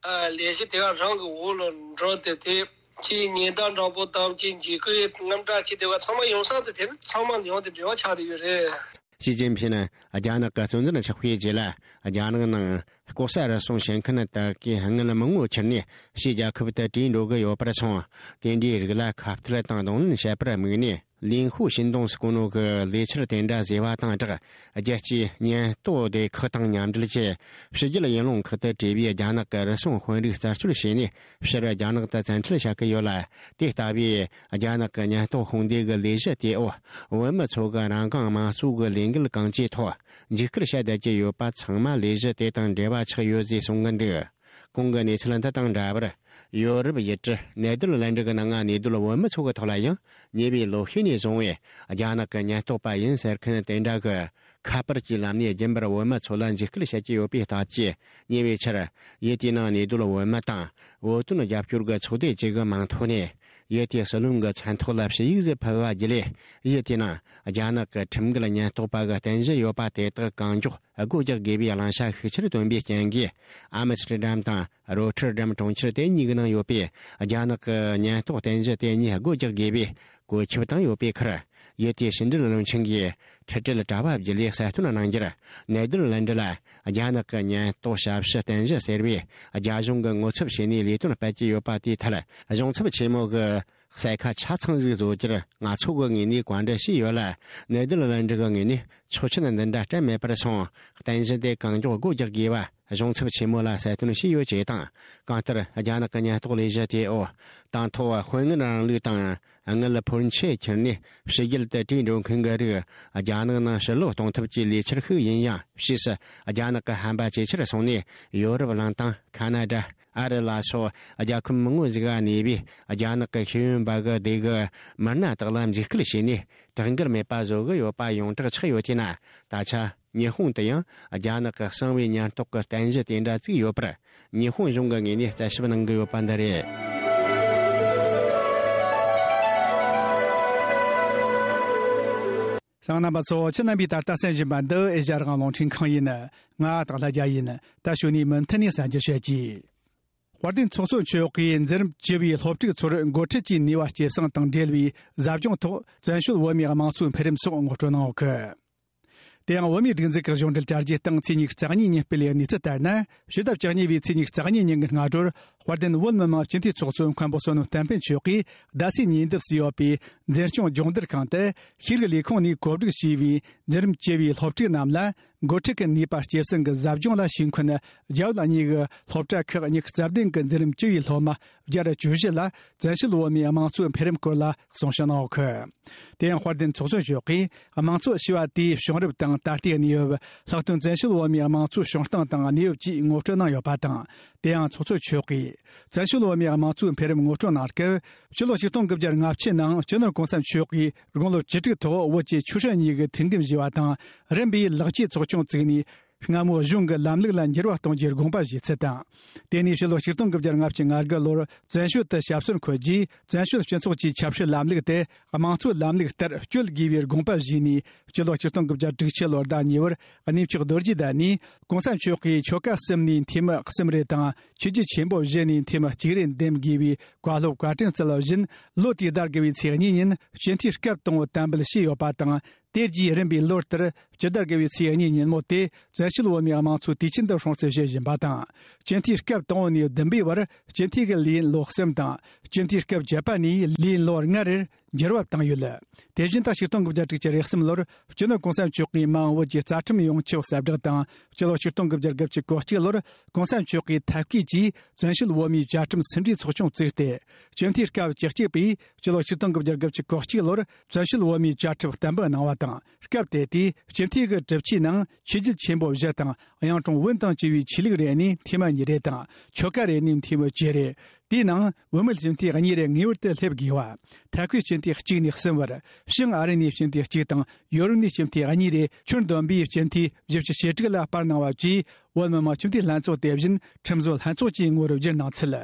ལས་གཞི་དེ་ག་རང་གི་འོག་ལ་འགྲོ་སྟེ། དེ་ཅིག་ཉེན་བརྡ་འདྲ་པོ་དང་ཅིག་འཇིགས་སྐུལ་དངངས་སྐྲག་ཅིག་དེ་བ་ཚང་མ་ཡོང་ས་དེ་དེ་ཚང་མ་ཡོང་དེ་འབྲེལ་བ་ཆགས་བསྡད་ཡོད་རེད། ཞི་ཅིན་ཕིང་རྒྱ་ནག་གི་གཙོ་འཛིན་ཆགས་པའི་རྗེས་ལ། རྒྱ་ནག་ནང་ལྐོག་ཟ་རུལ་སུངས་བྱེད་མཁན་དག་གིས་དངུལ་མང་བོ་ཁྱེར་ནས་ཕྱིའི་རྒྱལ་ཁབ་ཏུ་བྲོས་འགྲོ་གི་ཡོད་པར་སོང་། དེ་འདྲའི་རིགས་ལ་ཁ་གཏད་དང་གདོང་ལེན་བྱེད་པར་དམིགས་ནས། ལིན་ཧུའུ་ཤིན་ཏུང་སྐུ་ནོ་གིས་ལས་འཆར་དེ་འདྲ་བཟོས་པ་དང་སྦྲགས། རྒྱལ་སྤྱིའི་ཉེན་རྟོག་སྡེ་ཁག་དང་མཉམ་འབྲེལ་གྱིས་ཕྱི་རྒྱལ་ཡུལ་ལུང་ཁག་ཏུ་བྲོས་པའི་རྒྱ་ནག་གི་རུལ་སུངས་དཔོན་རིགས་རྩད་གཅོད་བྱས་ནས། ཕྱིར་རྒྱ་ནག་ཏུ་བཙན་ཁྲིད་བྱ་གི་ཡོད་ལ། དེ་ལྟ་བུའི་རྒྱ་ནག་གི་ཉེན་རྟོག་དཔུང་སྡེ་གི་ལས་གཞི་དེའི་འོག་བོད་མི་ཚོ་གི་རང་དབང་དམངས་གཙོ་གི་ལས་འགུལ་གང་ཅིའི་ཐོག་འཇིགས་སྐུལ་བྱ་བསྡད་ཀྱི་ཡོད་པ་ཚང་མ་ལས་གཞི་དེ་དང་འབྲེལ་བ་ཆགས་ཡོད་ཅེས་གསུང་གི་འདུག། གོང་གི་གནས་ཚུལ་འདི་དང་འདྲ་བར། ཡོ་རོབ་ཡུལ་གྲུ་ནེ་དར་ལན་ཌི་གི་ནང་གནས་སྡོད་བོད་མི་ཚོ་གི་ཐོག་ལ་ཡང་ཉེ་བའི་ལོ་ཤས་ནས་བཟུང་བའི་རྒྱ་ནག་གི་ཉེན་རྟོག་པ་ཡིན་ཟེར་མཁན་དེ་འདྲ་གིས་ཁ་པར་གྱི་ལམ་ནས་རྒྱུན་པར་བོད་མི་ཚོ་ལ་འཇིགས་སྐུལ་བྱེད་ཀྱི་ཡོད་པའི་སྟབས་ཀྱིས། ཉེ་བའི་ཆར་ཡུལ་དེའི་ནང་གནས་སྡོད་བོད་མི་དང་བོད་དོན་རྒྱབ་སྐྱོར་གྱི་ཚོགས་སྡེ་བཅས་ཀྱི་མིང་ཐོག་ནས། ཡུལ་དེའི་སྲིད་བློན་གྱི་མཚན་ཐོག་ལ་ཞུ་ཡིག་ཟིག་ཕུལ་བ་བརྒྱུད་ལས། ཡུལ་དེའི་ནང་རྒྱ་ནག་གི་ཁྲིམས་འགལ་ཉེན་རྟོག་པ་གི་རྟེན་གཞི་ཡོད་པ་དེ་དག་གང་མགྱོགས་སྒོ་རྒྱག་དགོས་པའི་བླང་བྱ་ཤུགས་ཆེར་བཏོན་པའི་རྐྱེན་གྱིས། ཨ་མི་སི་ཊར་ཌམ་དང་རོ་ཊར་ཌམ་གྲོང་ཁྱེར་དེ་གཉིས་ཀྱི་ནང་ཡོད་པའི་རྒྱ་ནག་གི་ཉེན་རྟོག་རྟེན་གཞི་དེ་གཉིས་སྒོ་རྒྱག་དགོས་པའི་བཀོད་ཁྱབ་བཏང་ཡོད་པའི་ཁར། ཡུལ་དེའི་ཕྱི་འབྲེལ་བློན་ཆེན་གྱིས་འཕྲལ་འཕྲལ་དྲ་བ་བརྒྱུད་ལས་གསལ་སྟོན་གནང་རྒྱུར། ནེ་དར་ལན་ཌི་ལ་རྒྱ་ནག་གི་ཉེན་རྟོག་ཞབས་ཞུ་རྟེན་གཞི་ཟེར་བས་རྒྱ་གཞུང་གིས་ངོ་ཚབ་བྱས་ནས་ལས་དོན་སྤེལ་གྱི་ཡོད་པ་དེའི་ཐད། གཞུང་ཚབ་ཆེན་མོ་གིས་གསལ་ཁ་ཆ་ཚང་ཟིག་བཟོ་རྒྱུར་ང་ཚོ་གི་ངོས་ནས་བཀའ་འདྲི་ཞུས་ཡོད་ལ། ནེ་དར་ལན་ཌི་གི་ངོས་ནས་ ཆོག་མཆན་འདི་འདྲ་སྤྲད་མེད་པར་སོང་། རྟེན་གཞི་དེ་གང་མགྱོགས་སྒོ་རྒྱག་དགོས་པ་གཞུང་ཚབ་ཆེན་མོ་ལ་གསལ་སྟོན་བྱས་ཡོད་ཅེས་དང་། གང་ལྟར་རྒྱ་ནག་གི་ཉེན་རྟོག་ལས་གཞི་དེ་འོག་དང་ཐོག་དཔོན་ངན་རིང་ལུགས་དང་དངུལ་ཕོན་ཆེ་ཁྱེར་ནས་ཕྱི་རྒྱལ་དུ་བྲོས་འགྲོ་མཁན་གྱི་རིགས་རྒྱ་ནག་ནང་ཕྱིར་ལོག་གཏོང་ཐབས་ཀྱི་ལས་འཆར་ཤིག་ཡིན་ཡང་། ཕྱིས་སུ་རྒྱ་ནག་གི་ཧམ་པ་ཇེ་ཆེར་སོང་ནས་ཡོ་རོབ་གླིང་དང་ཁ་ན་ཌ། ཨ་རི་ལ་སོགས་རྒྱལ་ཁབ་མང་བོ་ཞིག་ག་གནས་པའི་རྒྱ་ནག་གི་ཤེས་ཡོན་པ་གི་སྡེ་གི་མི་སྣ་དག་ལ་འཇིགས་སྐུལ་བྱས་ནས་དྲག་འགུལ་མེད་པ་བཟོ་གི་ཡོད་པ་ཡོངས་གྲགས་ཆགས་ཡོད་དེས་ན། ད་ཆ་ཉི་ཧོང་དུ་ཡང་རྒྱ་ནག་གི་གསང་བའི་ཉེན་རྟོག་གི་རྟེན་གཞི་དེ་འདྲ་བཙུགས་ཡོད་པར། ཉི་ཧོང་གཞུང་གི་ངོས་ནས་རྩད་ཞིབ་གནང་གི་ཡོད་པ་འདི་རེད། གསན་མཁན་རྣམ་པ་ཚོ། ཁྱེད་རྣམ་པས་ད་ལྟ་གསན་བཞིན་པ་འདི་ཨེ་ཤ་ཡ་རང་དབང་རླུང་འཕྲིན་ཁང་ཡིན། ང་སྟག་ལྷ་རྒྱལ་ཡིན། ད་གཞུག་ནས་མུ་མཐུད་ནས་གསན་རྒྱུ་བྱེད་ཀྱི། དཔལ་ལྡན་ཚོགས་གཙོ་མཆོག་གིས་འཛིན་རིམ་བཅུ་བའི་སློབ་ཕྲུག་ཚོར་འགོ་ཁྲིད་ཀྱི་ནུས་པ་སྐྱེད་སྲིང་དང་འབྲེལ་བའི་ཟབ་སྦྱོང་ཐོག་བཙན་བྱོལ་བོད་མིའི་དམངས་གཙོའི་འཕེལ་རིམ་སོགས་ངོ་སྤྲོད་གནང་ཡོད་གི། དེ་ཡང་བོད་མིའི་སྒྲིག་འཛུགས་ཀྱི་གཞུང་འབྲེལ་དྲ་རྒྱའི་སྟེང་ཚེས་ཉི་ཤུ་རྩ་གཉིས་ཉིན་སྤེལ་བའི་གནས་ཚུལ་ལྟར་ན། ཕྱི་ཟླ་བཅུ་གཉིས་པའི་ཚེས་ཉི་ཤུ་རྩ་གཉིས་ཉིན་གྱི་སྔ་དྲོར་དཔལ་ལྡན་བོད་མི་མང་སྤྱི་འཐུས་ཚོགས་གཙོ་མཁན་པོ་བསོད་ནམས་བསྟན་འཕེལ་མཆོག་གིས་རྡ་སའི་ཉེ་འདབས་སུ་ཡོད་པའི་འཛིན་སྐྱོང་སྦྱོང་བརྡར་ཁང་དུ་ཤེས་རིག་ལས་ཁུངས་ནས་གོ་སྒྲིག་བྱས་པའི་འཛིན་རིམ་བཅུ་བའི་སློབ་ཕྲུག་རྣམས་ལ། འགོ་ཁྲིད་ཀྱི་ནུས་པ་སྐྱེད་སྲིང་གི་ཟབ་སྦྱོང་ལ་ཞུགས་མཁན་རྒྱ་བོད་གཉིས་ཀྱི་སློབ་གྲྭ་ཁག་ཉི་ཤུ་རྩ་བདུན་གྱི་འཛིན་རིམ་བཅུ་བའི་སློབ་མ་བརྒྱ་དང་བཅུ་བཞི་ལ་བཙན་བྱོལ་བོད་མིའི་དམངས་གཙོའི་འཕེལ་རིམ་སྐོར་ལ་གསུང་བཤད་གནང་ཡོད་གི། དེ་ཡང་དཔལ་ལྡན་ཚོགས་གཙོ་མཆོག་གིས་དམངས་གཙོ་ཞེས་པ་དེའི་བྱུང་རབས་དང་ད་ལྟའི་གནས་བབ། ལྷག་དོན་བཙན་བྱོལ་བོད་མིའི་དམངས་གཙོའི་བྱུང་སྟངས་དང་གནས་བབ་བཅས་ངོ་སྤྲོད་གནང་ཡོད་པ་དང་། དེ་ཡང་ཚོགས་གཙོ་མཆོག་གིས་བཙན་བྱོལ་བོད་མིའི་དམངས་གཙོའི་འཕེལ་རིམ་ངོ་སྤྲོད་གནང་སྐབས། ཕྱི་ལོ་ཆིག་སྟོང་དགུ་བརྒྱ་ལྔ་བཅུ་ནང་སྤྱི་ནོར་གོང་ས་མཆོག་གིས་དགུང་ལོ་བཅུ་དྲུག་ཐོག་བོད་ཀྱི་ཆོས་སྲིད་གཉིས་ཀྱི་མཐུན་འགྱུར་བཞེས་པ་དང་། རིམ་པས་ལེགས་སྐྱེས་ཚོགས་ཆུང་བཙུགས་ནས། སྔ་མོ་གཞུང་གི་ལམ་ལུགས་ལ་འགྱུར་བ་གཏོང་རྒྱུའི་དགོངས་པ་བཞེས་ཚུལ་དང་། དེ་ནས་ཕྱི་ལོ་ཆིག་སྟོང་དགུ་བརྒྱ་ལྔ་བཅུ་ང་དགུ་ལོར་བཙན་བྱོལ་དུ་ཞབས་སོར་འཁོད་རྗེས། བཙན་བྱོལ་སྤྱི་ཚོགས་ཀྱི་ཆབ་སྲིད་ལམ་ལུགས་དེ་དམངས་གཙོའི་ལམ་ལུགས་ལྟར་བསྐྱོད་དགོས་པའི་དགོངས་པ་བཞེས་ནས། སྤྱི་ལོ་ཆིག་སྟོང་དགུ་བརྒྱ་དྲུག་ཅུ་ལོར་ཟླ་གཉིས་པར་གནས་མཆོག་རྡོ་རྗེ་གདན་ནས་གོང་ས་མཆོག་གིས་ཆོ་ག་གསུམ་ནས་འཐུས་མི་གསུམ་རེ་དང་། ཆོས་བརྒྱུད་ཆེན་པོ་བཞི་ནས་འཐུས་མི་གཅིག་རེ་འདེམས་དགོས་པའི་བཀའ་སློབ་བཀའ་དྲིན་སྩལ་བ་བཞིན། ལོ་དེའི་ཟླ་དགུ་བའི་ཚེས་གཉིས་ཉིན་སྤྱི་འཐུས་སྐབས་དང་པོ་དམ་འབུལ་བྱས་ཡོད་པ་དང་། དེ་རྗེས་རིམ་པས་ལོ་ལྟར་སྤྱི་ཟླ་དགུ་བའི་ཚེས་གཉིས་ཉིན་མོ་དེ་བཙན་བྱོལ་བོད་མིའི་དམངས་གཙོའི་དུས་ཆེན་དུ་སྲུང་བརྩི་བྱེད་བཞིན་པ་དང་། སྤྱི་འཐུས་སྐབས་དང་པོ་ནས་བདུན་པའི་བར་སྤྱི་འཐུས་ཀྱི་ལས་ཡུན་ལོ་གསུམ་དང་། སྤྱི་འཐུས་སྐབས་བཅུ་པ་ནས་ལས་ཡུན་ལོ་ལྔ་རེར་འགྱུར་བ་བཏང་ཡོད། དེ་བཞིན་ད་ཆིག་སྟོང་དགུ་བརྒྱ་དྲུག་ཅུ་རེ་གསུམ་ལོར་སྤྱི་ནོར་གོང་ས་མཆོག་གིས་མ་འོངས་བོད་ཀྱི་རྩ་ཁྲིམས་ཡོངས་ཁྱབ་གསལ་བསྒྲགས་དང་། སྤྱི་ལོ་ཆིག་སྟོང་དགུ་བརྒྱ་དགུ་བཅུ་གོ་གཅིག་ལོར་གོང་ས་མཆོག་གིས་ཐབས་བཀོད་ཀྱིས་བཙན་བྱོལ་བོད་མིའི་བཅའ་ཁྲིམས་ཟིན་བྲིས་ཚོགས་ཆུང་བཙུགས་ཏེ། སྤྱི་འཐུས་སྐབས་བཅུ་གཅིག་པས་སྤྱི་ལོ་ཆིག་སྟོང་དགུ་བརྒྱ་དགུ་བཅུ་གོ་གཅིག་ལོར་བཙན་བྱོལ་བོད་མིའི་བཅའ་ཁྲིམས་གཏན་འབེབས་གནང་བ་དང་། སྐབས་དེ་དུས་སྤྱི་འཐུས་ཀྱི་གྲུབ་ཆའི་ནང་ཆོས་བརྒྱུད་ཆེན་པོ་བཞི་དང་། གཡུང་དྲུང་བོན་དང་བཅས་པའི་ཆོས་ལུགས་རེ་ནས་འཐུས་མི་གཉིས་རེ་དང་། ཆོ་ག་རེ་ནས་འཐུས་མི་བཅུ་རེ། དེའི་ནང་བུད་མེད་སྤྱི་འཐུས་གཉིས་རེ་ངེས་པར་དུ་སླེབས་དགོས་པ། ཐད་ཁུལ་སྤྱི་འཐུས་གཅིག་ནས་གསུམ་བར། བྱང་ཨ་རི་ནས་སྤྱི་འཐུས་གཅིག་དང་ཡོ་རོབ་ནས་སྤྱི་འཐུས་གཉིས་རེ། ཁྱོན་བསྡོམས་པའི་སྤྱི་འཐུས་བཞི་བཅུ་ཞེ་དྲུག་ལ་བསྤར་གནང་བ་བཅས། བོད་མི་མང་སྤྱི་འཐུས་ལྷན་ཚོགས་དེ་བཞིན་ཁྲིམས་བཟོ་ལྷན་ཚོགས་ཀྱི་ངོ་བོར་བསྒྱུར་གནང་ཚུལ།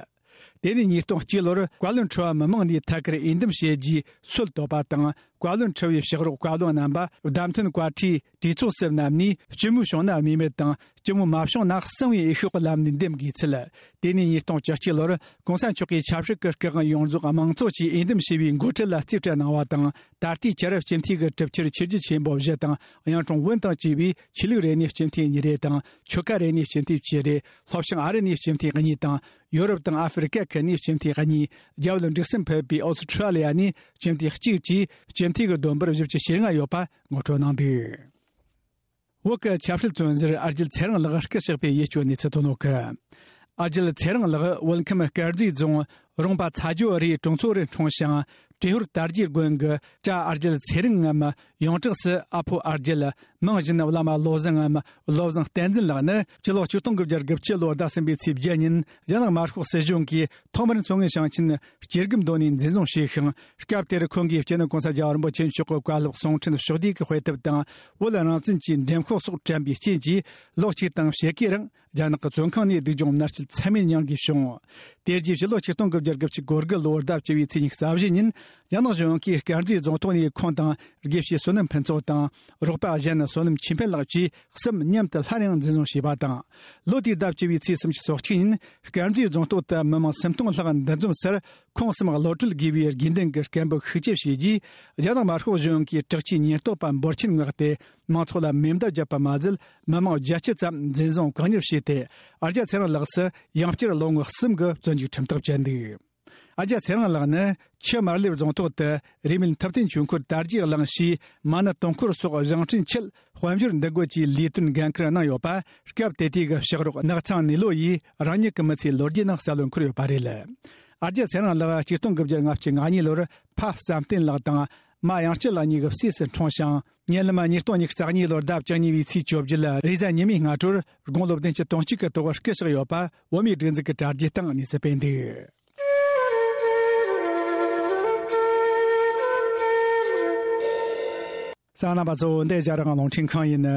དེ་ནས་ཉིས་སྟོང་གཅིག་ལོར་བཀའ་བློན་ཁྲི་པ་མི་མང་ནས་ཐད་ཀར་འོས་འདེམས་བྱས་རྗེས་སྲོལ་བཏོད་པ་དང་། བཀའ་བློན་ཁྲི་པའི་ཕྱག་རོགས་བཀའ་བློན་རྣམ་པ་བདམས་ཐོན་བཀའ་ཁྲིའི་གྲོས་ཚོགས་སུ་བསྣམས་ནས། སྤྱི་མོས་བྱུང་ན་དམིགས་མེད་དང་། སྤྱི་མོས་མ་བྱུང་ན་གསང་བའི་འོས་ཤོག་གི་ལམ་ནས་འདེམས་དགོས་ཚུལ། དེ་ནས་ཉིས་སྟོང་བཅུ་གཅིག་ལོར་གོང་ས་མཆོག་གིས་ཆབ་སྲིད་ཀྱི་སྐུ་དབང་ཡོངས་རྫོགས་དམངས་གཙོ་ཆེད་འོས་འདེམས་བྱས་པའི་འགོ་ཁྲིད་ལ་རྩིས་སྤྲད་གནང་བ་དང་། ད་ལྟའི་ཆར་སྤྱི་འཐུས་ཀྱི་གྲུབ་ཆར་ཆོས་བརྒྱུད་ཆེན་པོ་བཞི་དང་། གཡུང་དྲུང་བོན་དང་བཅས་པའི་ཆོས་ལུགས་རེ་ནས་སྤྱི་འཐུས་གཉིས་རེ་དང་། ཆོལ་ཁ་རེ་ནས་སྤྱི་འཐུས་བཅུ་རེ། ལྷོ་བྱང་ཨ་རི་ནས་སྤྱི་འཐུས་གཉིས་དང་། ཡོ་རོབ་དང་ཨ་ཧྥེ་རི་ཀ་ཁུལ་ནས་སྤྱི་འཐུས་གཉིས། རྒྱ་བོད་འབྲུག་གསུམ་ཕུད་པའི་ཨོ་སི་ཁྲ་ལི་ཡ་ནས་སྤྱི་འཐུས་གཅིག་བཅས་སྤྱི་འཐུས་ཀྱི་བསྡོམས་པར་བཞི་བཅུ་ཞེ་ལྔ་ཡོད་པ་ངོ་སྤྲོད་གནང་འདུག་བོད་ཀྱི་ཆབ་སྲིད་བཙོན་ཟུར་ཨ་རྒྱལ་ཚེ་རིང་ལགས་སྐུ་གཤེགས་པའི་ཡིད་སྐྱོ་གནས་ཚུལ་ཐོན་ཡོད་གི། ཨ་རྒྱལ་ཚེ་རིང་ལགས་བོད་ཁམས་དཀར་མཛེས་རྫོང་རོང་པ་ཚ་ཇོ་རིའི་གྲོང་ཚོ་རུ་འཁྲུངས་ཤིང་། བྲེ་ཧོར་དར་རྒྱས་དགོན་གྱི་བྲག་ཨ་རྒྱལ་ཚེ་རིང་ངམ་ཡོངས་གྲགས་སུ་ཨ་ཕོ་ཨ་རྒྱལ། མིང་བཞིན་བླ་མ་བློ་བཟང་ངམ་བློ་བཟང་བསྟན་འཛིན་ལགས་ནི་སྤྱི་ལོ་ཆིག་སྟོང་དགུ་བརྒྱ་དགུ་བཅུ་ལོའི་ཟླ་གསུམ་པའི་ཚེས་བརྒྱད་ཉིན་རྒྱ་ནག་དམར་ཤོག་སྲིད་གཞུང་གིས་ཐོག་མར་མཚོ་སྔོན་ཞིང་ཆེན་སྐྱེ་རྒུ་མདོ་ནས་འཛིན་བཟུང་བྱས་ཤིང་། སྐབས་དེར་ཁོང་གིས་སྤྱི་ནོར་གོང་ས་རྒྱལ་བ་རིན་པོ་ཆེ་མཆོག་གི་བཀའ་སློབ་གསུང་འཕྲིན་ཕྱོགས་བསྡུས་ཀྱི་དཔེ་དེབ་དང་། བོད་རང་བཙན་གྱི་འགྲེམས་ཤོག་སོགས་དྲན་པའི་རྐྱེན་གྱིས། ལོ་གཅིག་དང་ཕྱེད་ཀའི་རིང་རྒྱ་ནག་གི་བཙོན་ཁང་ནས་སྡུག་སྦྱོང་མནར་གཅོད་ཚད་མེད་མྱངས་དགོས་བྱུང་། དེ་རྗེས་ཕྱི་ལོ་ཆིག་སྟོང་དགུ་བརྒྱ་དགུ་བཅུ་གོ་དགུ་ལོའི་ཟླ་བཅུ་བའི་ཚེས་ཉི་ཤུ་རྩ་བཞི་ཉིན། རྒྱ་ནག་གཞུང་གིས་དཀར་མཛེས་རྫོང་ཐོག་ནས་ཁོང་དང་དགེ་བཤེས་བསོད་ནམས་ཕུན་ཚོགས་དང་། རོགས་པ་གཞན་བསོད་ནམས་ཆོས་འཕེལ་ལགས་བཅས་གསུམ་མཉམ་དུ་སླར་ཡང་འཛིན་བཟུང་བྱས་པ་དང་། ལོ་དེའི་ཟླ་བཅུ་བའི་ཚེས་སུམ་ཅུ་སོ་གཅིག་ཉིན་དཀར་མཛེས་རྫོང་ཐོག་ཏུ་མི་མང་སུམ་སྟོང་ལྷག་འདུ་འཛོམས་སར། ཁོང་གསུམ་གློད་གྲོལ་དགོས་པའི་དགོས་འདུན་གྱི་སྐད་འབོད་ཤུགས་ཆེ་བྱས་རྗེས། རྒྱ་ནག་དམར་ཤོག་གཞུང་གིས་དྲག་ཆས་ཉེན་རྟོག་པ་འབོར་ཆེན་མངགས་ཏེ། མང་ཚོགས་ལ་མེ་མདའ་བརྒྱབ་པ་མ་ཟད། མི་མང་བརྒྱད་ཅུ་ཙམ་འཛིན་བཟུང་བཀག་ཉར་བྱས་ཏེ། ཨ་རྒྱལ་ཚེ་རིང་ལགས་སུ་ཡང་བསྐྱར་ལོ་ངོ་གསུམ་གྱི་བཙོན་འཇུག་ཁྲིམས་ཐག་བཅད་འདུག་ཨ་ཅག་ཚེ་རིང་ལགས་ནི་ཆུ་དམར་ལེབ་རྫོང་ཐོག་ཏུ་རེས་མོས་ཐུབ་བསྟན་ཆོས་འཁོར་དར་རྒྱས་གླིང་ཞེས་མ་ཎི་དུང་འཁོར་སོགས་བཞེངས་སྐྲུན་ཆེད་དཔལ་འབྱོར་འདུ་འགོད་ཀྱི་ལས་དོན་འགན་འཁུར་གནང་ཡོད་པ་སྐབས་དེ་དུས་ཀྱི་ཕྱག་རོགས་ནགས་ཚང་ནེ་ལོ་ཡིས་རང་ཉིད་ཀྱི་མི་ཚེའི་ལོ་རྒྱུས་ནང་གསལ་བོར་འཁོད་ཡོད་པ་རེད། ཨ་ཅག་ཚེ་རིང་ལགས་ཆིག་སྟོང་དགུ་བརྒྱ་ལྔ་བཅུ་ང་གཉིས་ལོར་ཕ་བསམ་གཏན་ལགས་དང་མ་དབྱངས་སྐྱིད་ལགས་གཉིས་ཀྱི་སྲས་སུ་འཁྲུངས་ཤིང་། ཉེ་ལམ་ཉིས་སྟོང་ཉི་ཤུ་རྩ་གཉིས་ལོར་ཟླ་བཅུ་གཉིས་པའི་ཚེས་བཅོ་བརྒྱད་ལ་རེས་གཟའ་ཉི་མའི་སྔ་དྲོར་དགུང་ལོ་བདུན་ཅུ་དོན་གཅིག་གི་ཐོག་སྐུ་གཤེགས་ཡོད་པ་བོད་མིའི་སྒྲིག་འཛུགས་ཀྱི་དྲ་རྒྱའི་སྟེང་གནས་ཚུལ་སྤེལ་འདུག་གསན་མཁན་རྣམ་པ་ཚོ། འདི་རྒྱ་རིགས་རླུང་འཕྲིན་ཁང་ཡིན།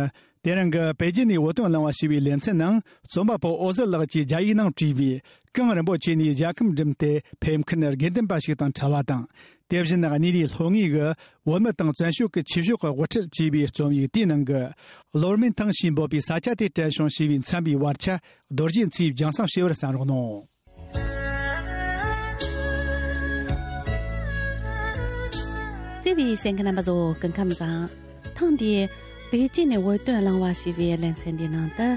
དེ་རིང་གི་པེ་ཅིན་ནས་བོད་དོན་གླེང་བ་ཞེས་པའི་ལེ་ཚན་ནང་རྩོམ་པ་པོ་འོད་ཟེར་ལགས་ཀྱིས་རྒྱ་ཡིག་ནང་བྲིས་པའི་གངས་རིན་པོ་ཆེ་ནས་རྒྱལ་ཁམས་འགྲིམས་ཏེ་ཕེབས་མཁན་དགེ་འདུན་པ་ཞིག་དང་འཕྲད་པ་དང་། དེ་བཞིན་གནས་རིའི་ལྷོ་ངོས་ཀྱི་བོད་མི་དང་བཙན་བྱོལ་གྱི་ཆོས་ཕྱོགས་ཀྱི་དབུ་ཁྲིད་ཅེས་པའི་རྩོམ་ཡིག་དེའི་ནང་གི་ལོར་མིན་ཐང་ཞེས་འབོད་པའི་ས་ཆ་དེ་དྲན་བྱུང་ཞེས་པའི་མཚན་པའི་བར་ཆ་རྡོ་རྗེ་མཚོས་རྒྱང་སྲིང་ཞུས་པར་གསན་རོགས་གནང་། བརྩེ་བའི་གསན་མཁན་རྣམ་པ་ཚོ་སྐུ་ཁམས་བཟང་། ཐེངས་འདིའི་པེ་ཅིན་ནས་བོད་དོན་གླེང་བ་ཞེས་པའི་ལེ་ཚན་འདིའི་ནང་དུ་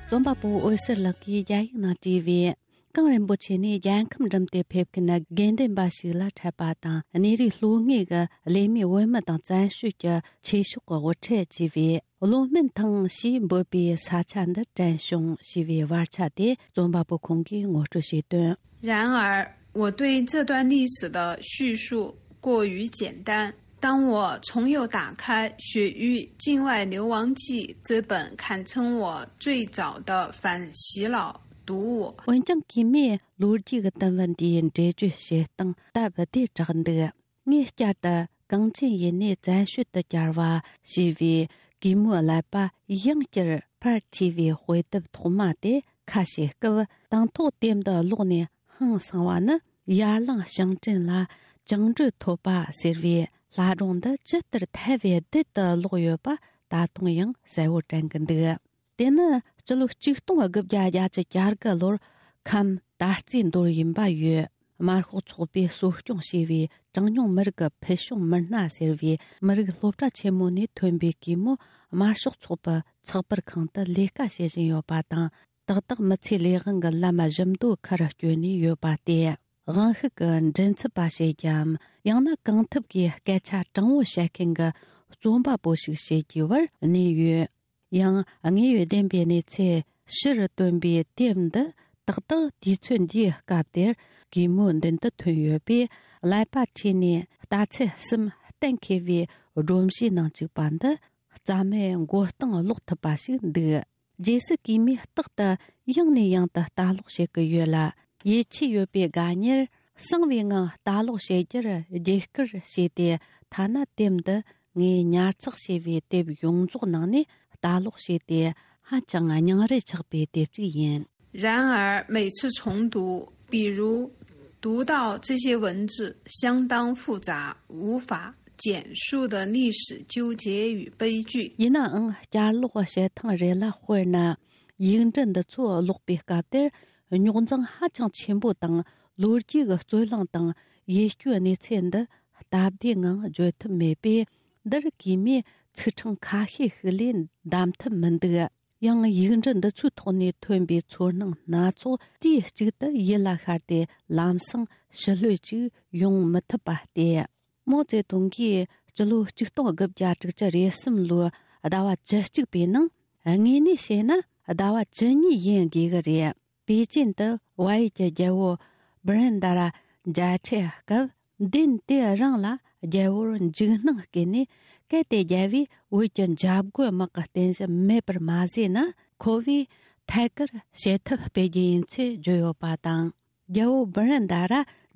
རྩོམ་པ་པོ་འོད་ཟེར་ལགས་ཀྱིས་རྒྱ་ཡིག་ནང་བྲིས་པའི། གངས་རིན་པོ་ཆེ་ནས་རྒྱལ་ཁམས་འགྲིམས་ཏེ་ཕེབས་མཁན་དགེ་འདུན་པ་ཞིག་ལ་འཕྲད་པ་དང་། གནས་རིའི་ལྷོ་ངོས་ཀྱི་གླེ་མོས་བོད་མི་དང་བཙན་བྱོལ་གྱི་ཆོས་ཕྱོགས་ཀྱི་དབུ་ཁྲིད་ཅེས་པའི་ལོ་སྨན་ཐང་ཞེས་འབོད་པའི་ས་ཆ་འདི་དྲན་བྱུང་ཞེས་པའི་བར་ཆ་དེ་རྩོམ་པ་པོ་ཁོང་གིས་ངོ་སྤྲོད་བྱས་དོན། 然而，我对这段历史的叙述过于简单。当我重又打开《雪域境外流亡记》这本堪称我最早的反洗脑读物， འོན་ཀྱང་གིས་མོས་ལོ་རྒྱུས་ཀྱི་དུམ་བུ་འདིའི་འགྲེལ་བརྗོད་བྱེད་སྟངས་སྟབས་བདེ་དྲགས་འདུག་ངས་བསྐྱར་དུ་གངས་ཅན་ཡུལ་ནས་བཙན་བྱོལ་དུ་གྱར་བ་ཞེས་པའི་གུས་མོའི་ཀླད་པ་ཡང་བསྐྱར་ཕར་འཁྱེར་བའི་དཔེ་དེབ་ཐོག་མ་དེ་ཁ་ཕྱེ་སྐབས། དང་ཐོག་དེབ་འདི་ཀློག་ནས་ཧང་སངས་པ་ནི། ཡར་ལངས་ཞིང་བྲན་ལ་བཅིངས་འགྲོལ་ཐོབ་པ་ཟེར་བའི་ལྷ་སྒྲུང་འདི་ཇི་ལྟར་ཐལ་བའི་རྡུལ་དུ་ཀློག་ཡོད་པ་ད་དུང་ཡང་གསལ་བོ་དྲན་གྱི་འདུག་དེ་ནི་སྤྱི་ལོ་ཆིག་སྟོང་དགུ་བརྒྱ་བརྒྱད་ཅུ་གྱ་དགུ་ལོར་ཁམས་ད་རྩིས་མདོར་ཡིན་པ་ཡོད། དམར་ཤོག་ཚོགས་པས་གསོ་སྐྱོང་བྱས་པའི་གྲངས་ཉུང་མི་རིགས་ཀྱི་ཕུལ་བྱུང་མི་སྣ་ཟེར་བའི་མི་རིགས་སློབ་གྲྭ་ཆེན་མོ་ནས་ཐོན་པའི་གུས་མོ་དམར་ཤོག་ཚོགས་པའི་ཚགས་པར་ཁང་དུ་ལས་ཀ་བྱེད་བཞིན་ཡོད་པ་དང་། ཏག་ཏག་མི་ཚེའི་ལས་དབང་གི་ལམ་བཞི་མདོ་ཁར་བསྐྱོད་ནས་ཡོད་པ་སྟེ། དབང་ཤུགས་ཀྱི་མགྲིན་ཚབ་པ་བྱེད་ཀྱམ། ཡང་ན་གང་ཐུབ་ཀྱིས་སྐད་ཆ་དྲང་བོ་བཤད་མཁན་གྱི་རྩོམ་པ་པོ་ཞིག་བྱེད་རྒྱུའི་བར་གནས་ཡོད། ཡང་དངོས་ཡོད་བདེན་པའི་གནས་ཚུལ་ཕྱིར་བཏོན་པའི་དེབ་འདི་ཏག་ཏག་དུས་ཚོད་འདིའི་སྐབས་དེར་གུས་མོའི་མདུན་དུ་ཐོན་ཡོད་པས། ཀླད་པ་འཁྲུལ་ནས་རྟགས་ཚད་གསུམ་གཏན་འཁེལ་བའི་སྒྲོམ་གཞིའི་ནང་བཅུག་པ་འདི་རྩ་མེད་མགོ་རྟིང་སློག་ཐུབ་པ་ཞིག་འདུག་རྗེས་སུ་གུས་མོས་རྟག་ཏུ་ཡང་ནས་ཡང་དུ་ལྟ་ཀློག་བྱེད་ཀྱི་ཡོད་ལ། ཡིད་ཆེས་ཡོད་པའི་དགའ་ཉེར་གསང་བའི་ངང་ལྟ་ཀློག་བྱེད་རྒྱུར་རྒྱུགས་སྐུལ་བྱས་ཏེ། ཐ་ན་དེབ་འདི་ངས་ཉར་ཚགས་བྱས་པའི་དེབ་ཡོངས་རྫོགས་ནང་ནས་ལྟ་ཀློག་བྱས་ཏེ། ཧ་ཅང་སྙིང་རུས་ཆགས་པའི་དེབ་ཅིག་ཡིན། 然而，每次重读，比如读到这些文字相当复杂，无法简述的历史纠结与悲剧， ཡིན་ནའང་བསྐྱར་ཀློག་བྱེད་ཐེངས་རེ་ལ། དཔེར་ན། ཡིག་འབྲུ་འདི་ཚོ་ཀློག་པའི་སྐབས་དེར་རྙོག་འཛིང་ཧ་ཅང་ཆེན་པོ་དང་། ལོ་རྒྱུས་ཀྱི་རྩོད་གླེང་དང་ཡིད་སྐྱོའི་གནས་ཚུལ་འདི་སྟབས་བདེའི་ངང་བརྗོད་ཐུབ་མེད་པས། འདིར་གུས་མོས་ཚིག་ཕྲེང་ཁ་ཤས་ཤིག་ལས་འདེམས་ཐུབ་མི་འདུག་ཡང་ཡིག་འབྲུ་འདི་ཚོའི་ཐོག་ནས་ཐོན་པའི་ཚོར་སྣང་སྣ་ཚོགས་དུས་གཅིག་ཏུ་ཡིད་ལ་ཤར་ཏེ། ལམ་སང་ཞི་ལྷོད་ཅིག་ཡོང་མི་ཐུབ་པ་སྟེ། མའོ་ཙེ་ཏུང་གིས་སྤྱི་ལོ་ཆིག་སྟོང་དགུ་བརྒྱ་དྲུག་ཅུ་རེ་གསུམ་ལོའི་ཟླ་བ་བཅུ་གཅིག་པའི་ནང་། དངོས་གནས་བཤད་ན་ཟླ་བ་བཅུ་གཉིས་ཡིན་དགོས་ཀྱི་རེད། པེ་ཅིན་དུ་བལ་ཡུལ་གྱི་རྒྱལ་པོ་བྷི་རན་ད་ར་མཇལ་འཕྲད་སྐབས། མདུན་དེ་རིང་ལ་རྒྱལ་པོར་འཇིགས་སྣང་སྐྱེས་ནས། གལ་ཏེ་རྒྱལ་པོས་བོད་ཀྱི་འཇབ་རྒོལ་དམག་གི་རྟེན་གཞི་མེད་པར་མ་བཟོས་ན། ཁོ་བོས་ཐད་ཀར་བྱེད་ཐབས་སྤེལ་རྒྱུ་ཡིན་ཚུལ་བརྗོད་ཡོད་པ་དང་། རྒྱལ་པོ་བྷི་རན་ད་ར་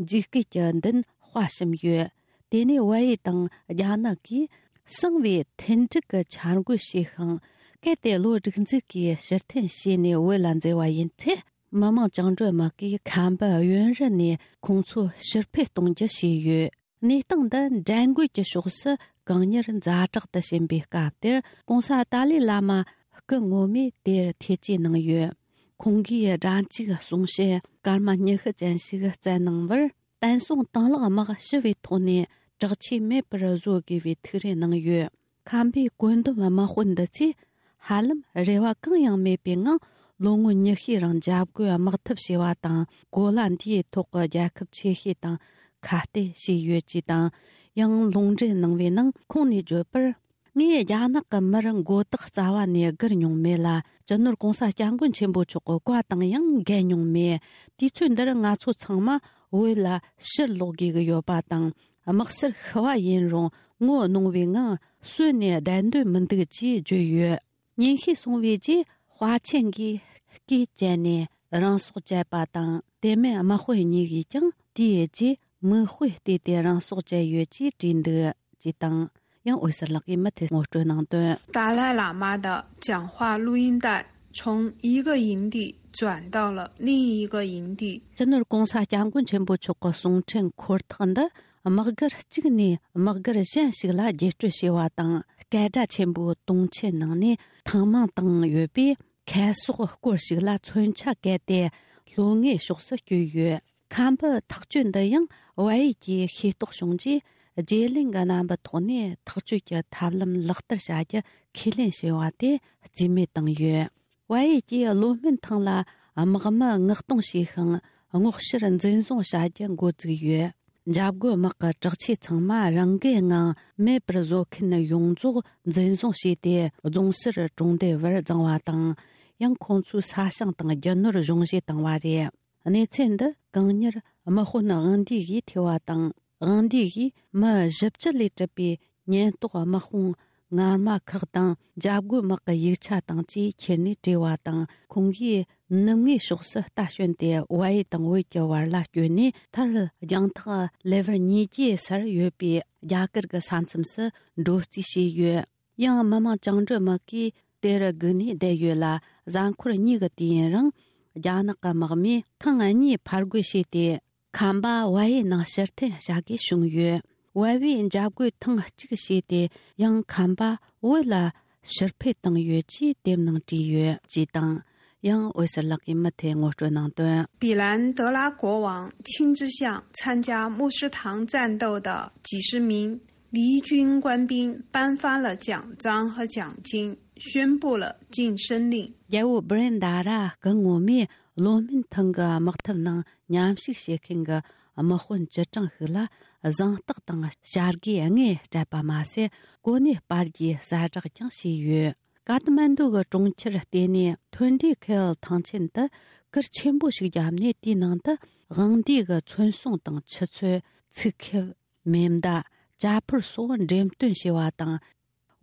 འཇིགས་སྐུལ་གྱི་མདུན་དཔའ་ཞུམ་ཡོད། དེ་ནས་བལ་ཡུལ་དང་རྒྱ་ནག་གིས་གསང་བའི་མཐུན་འགྲིག་གི་འཆར་འགོད་བྱས་ཤིང་། གལ་ཏེ་བློ་སྒྲིག་འཛུགས་ཀྱིས་ཕྱིར་འཐེན་བྱས་ནས་བོད་ལ་འཛུལ་བ་ཡིན་ཚེ། མི་དམངས་བཅིངས་འགྲོལ་དམག་གིས་ཁམས་པའི་གཡོན་རུ་ནས་ཁོང་ཚོ་ཕྱིར་འཕུར་གཏོང་རྒྱུ་བྱས་ཡོད། གནས་སྟངས་འདི་འགྲན་རྒོལ་གྱི་ཕྱོགས་སུ་གང་མྱུར་ཛ་དྲག་ཏུ་ཕྱིན་པའི་སྐབས་དེར། གོང་ས་ཏཱ་ལའི་བླ་མ་སྐུ་ངོ་མས་དེར་ཐེ་བྱུས་གནང་ཡོད། ཁོང་གིས་སྒྲ་འཇུག་གསུང་བཤད་སྐར་མ་ཉི་ཤུ་ཅན་ཞིག་བསྩལ་གནང་བར། བསྟན་སྲུང་དང་བླངས་དམག་ཞི་བའི་ཐོག་ནས་དྲག་ཆས་མེད་པར་བཟོ་དགོས་པའི་ཐུགས་རེ་གནང་ཡོད། ཁམས་པའི་བཀོད་འདོམས་དམག་དཔོན་འདི་ཚོས་ཧ་ལམ་རེ་བ་གང་ཡང་མེད་པའི་ངང་ ལོ་ངོ་ཉི་ཤས་རིང་འཇབ་རྒོལ་དམག་འཐབ་བྱས་པ་དང་། གོ་ལ་འདིའི་ཐོག་གི་རྒྱལ་ཁབ་ཆེ་ཤོས་དང་ཁ་གཏད་བྱས་ཡོད་ཅེས་དང་། ཡང་ལུང་འདྲེན་གནང་བའི་ནང་ཁོང་ནས་བརྗོད་པར། ངས་རྒྱ་ནག་གི་མིར་མགོ་བཏགས་རྩ་བ་ནས་སྒུར་མྱོང་མེད་ལ། སྤྱི་ནོར་༸གོང་ས་༸སྐྱབས་མགོན་ཆེན་པོ་མཆོག་གི་བཀའ་དང་ཡང་འགལ་མྱོང་མེད། དུས་ཚོད་འདིར་ང་ཚོ་ཚང་མ་བོད་ལ་ཕྱིར་ལོག་དགོས་ཀྱི་ཡོད་པ་དང་། དམག་སར་ཤི་བ་ཡིན་རུང་ངོ་གནོང་བའི་ངང་གསོན་ནས་བསྡད་འདོད་མི་འདུག་ཅེས་བརྗོད་ཡོད། ཉིན་ཤས་སོང་བའི་རྗེས་དཔའ་ཆེན་གྱིས་སྐེ་བཅད་ནས་རང་སྲོག་བཅད་པ་དང་། དེ་མིན་དམག་དཔོན་གཉིས་ཀྱིས་ཀྱང་དེའི་རྗེས་མིག་དཔེ་བལྟས་ཏེ་རང་སྲོག་བཅད་ཡོད་ཅེས་བྲིས་འདུག་ཅེས་དང་། ཡང་འོད་ཟེར་ལགས་ཀྱིས་མུ་མཐུད་ངོ་སྤྲོད་གནང་དོན།达赖喇嘛的讲话录音带从一个营地转到了另一个营地。 སྤྱི་ནོར་༸གོང་ས་༸སྐྱབས་མགོན་ཆེན་པོ་མཆོག་གི་གསུང་འཕྲིན་འཁོར་ཐག་འདི་དམག་སྒར་གཅིག་ནས་དམག་སྒར་གཞན་ཞིག་ལ་བརྒྱུད་སྤྲོད་བྱས་པ་དང་། སྐད་སྒྲ་ཆེན་པོའི་དུང་ཆེན་ནང་ནས་ཐེངས་མང་བཏང་ཡོད་པས། ཁ་ཟས་སྐོར་ཞིག་ལ་མཚོན་ཆ་བཀལ་ཏེ་ལྷོ་ངོས་ཕྱོགས་སུ་བསྐྱོད་ཡོད། ཁམས་པའི་ཐག་གཅོད་འདི་ཡང་བལ་ཡུལ་གྱིས་ཤེས་རྟོགས་བྱུང་རྗེས། བརྗེ་ལེན་གྱི་རྣམ་པའི་ཐོག་ནས་ཐག་གཅོད་ཀྱི་ཐབས་ལམ་ལག་བསྟར་བྱ་རྒྱུ་ཁས་ལེན་བྱས་པ་དེ་རྩིས་མེད་བཏང་ཡོད། བལ་ཡུལ་གྱིས་ལོ་སྨད་ཐང་ལ་དམག་མི་མངགས་གཏོང་བྱས་ཤིང་། སྔོག་བཤེར་འཛིན་བཟུང་བྱ་རྒྱུ་འགོ་བཙུགས་ཡོད། འཇབ་རྒོལ་དམག་གི་དྲག་ཆས་ཚང་མ་རང་འགུལ་ངང་མེད་པར་བཟོ་མཁན་ཡོངས་རྫོགས་འཛིན་བཟུང་བྱས་ཏེ། རྫོང་སར་གྲོང་སྡེ་བར་བརྫངས་པ་དང་། ཡང་ཁོང་ཚོའི་ས་ཞིང་དང་རྒྱུ་ནོར་གཞུང་བཞེས་བཏང་བ་རེད། གནས་ཚུལ་འདི་གང་ཉིད་དམག་དཔོན་དབང་འདུས་ཀྱིས་ཐོས་པ་དང་། དབང་འདུས་ཀྱིས་མི་བཞི་བཅུ་ལས་གྲུབ་པའི་ཉེན་རྟོག་དམག་དཔུང་ངར་མ་ཁག་དང་། འཇབ་རྒོལ་དམག་གི་ཡིག་ཆ་དང་བཅས་ཁྱེར་ནས་བྲོས་པ་དང་། ཁོང་གིས་ནུབ་ངོས་ཕྱོགས་སུ་རྟ་ཞོན་ཏེ། བལ་ཡུལ་དང་བོད་ཀྱི་བར་ལ་བསྐྱོད་ནས། མཐར་རྒྱང་ཐག་ལེ་བར་ཉིས་བརྒྱའི་སར་ཡོད་པའི་རྒྱ་གར་གྱི་ས་མཚམས་སུ་འགྲོ་རྩིས་བྱས་ཡོད། ཡང་མི་དམངས་བཅིངས་འགྲོལ་དམག་གིས་དེར་སྒུག་ནས་བསྡད་ཡོད་ལ། གཟའ་འཁོར་གཉིས་ཀྱི་དུས་ཡུན་རིང་རྒྱ་ནག་གི་དམག་མིས་ཐེངས་གཉིས་ཕར་རྒོལ་བྱས་ཏེ། ཁམས་པ་བལ་ཡུལ་ནང་ཕྱིར་འཐེན་བྱ་དགོས་བྱུང་ཡོད། བལ་པོས་འཇབ་རྒོལ་ཐེངས་གཅིག་བྱས་ཏེ། ཡང་ཁམས་པ་བོད་ལ་ཕྱིར་འཕུད་བཏང་ཡོད་ཅེས་དེབ་ནང་བྲིས་ཡོད་ཅེས་དང་། ཡང་འོད་ཟེར་ལགས་ཀྱིས་མུ་མཐུད་ངོ་སྤྲོད་གནང་དོན། 比兰德拉国王亲自向参加牧师堂战斗的几十名离军官兵颁发了奖章和奖金，宣布了晋升令。 རྒྱལ་པོ་བྷི་རེན་དཱ་ར་སྐུ་ངོ་མས་ལོ་སྨད་ཐང་གི་དམག་འཐབ་ནང་མཉམ་ཞུགས་བྱེད་མཁན་གྱི་དམག་དཔོན་བཅུ་གྲངས་ཤིག་ལ་གཟེངས་རྟགས་དང་བྱ་དགའི་དངུལ་སྤྲད་པ་མ་ཟད། གོ་གནས་སྤར་རྒྱུའི་གསལ་བསྒྲགས་ཀྱང་བྱས་ཡོད། ཀ་ཐ་མན་ཌུ་གི་གྲོང་ཁྱེར་ལྟེ་གནས་ཐོན་ཌི་ཁེལ་ཐང་ཆེན་དུ་གུར་ཆེན་པོ་ཞིག་བརྒྱབ་ནས། དེའི་ནང་དུ་དབང་འདུས་ཀྱི་མཚན་སྲུང་དང་ཆུ་ཚོད། ཚིག་ཁེབས། མེ་མདའ། ཇ་ཕོར་སོགས་འགྲེམས་སྟོན་བྱས་པ་དང་།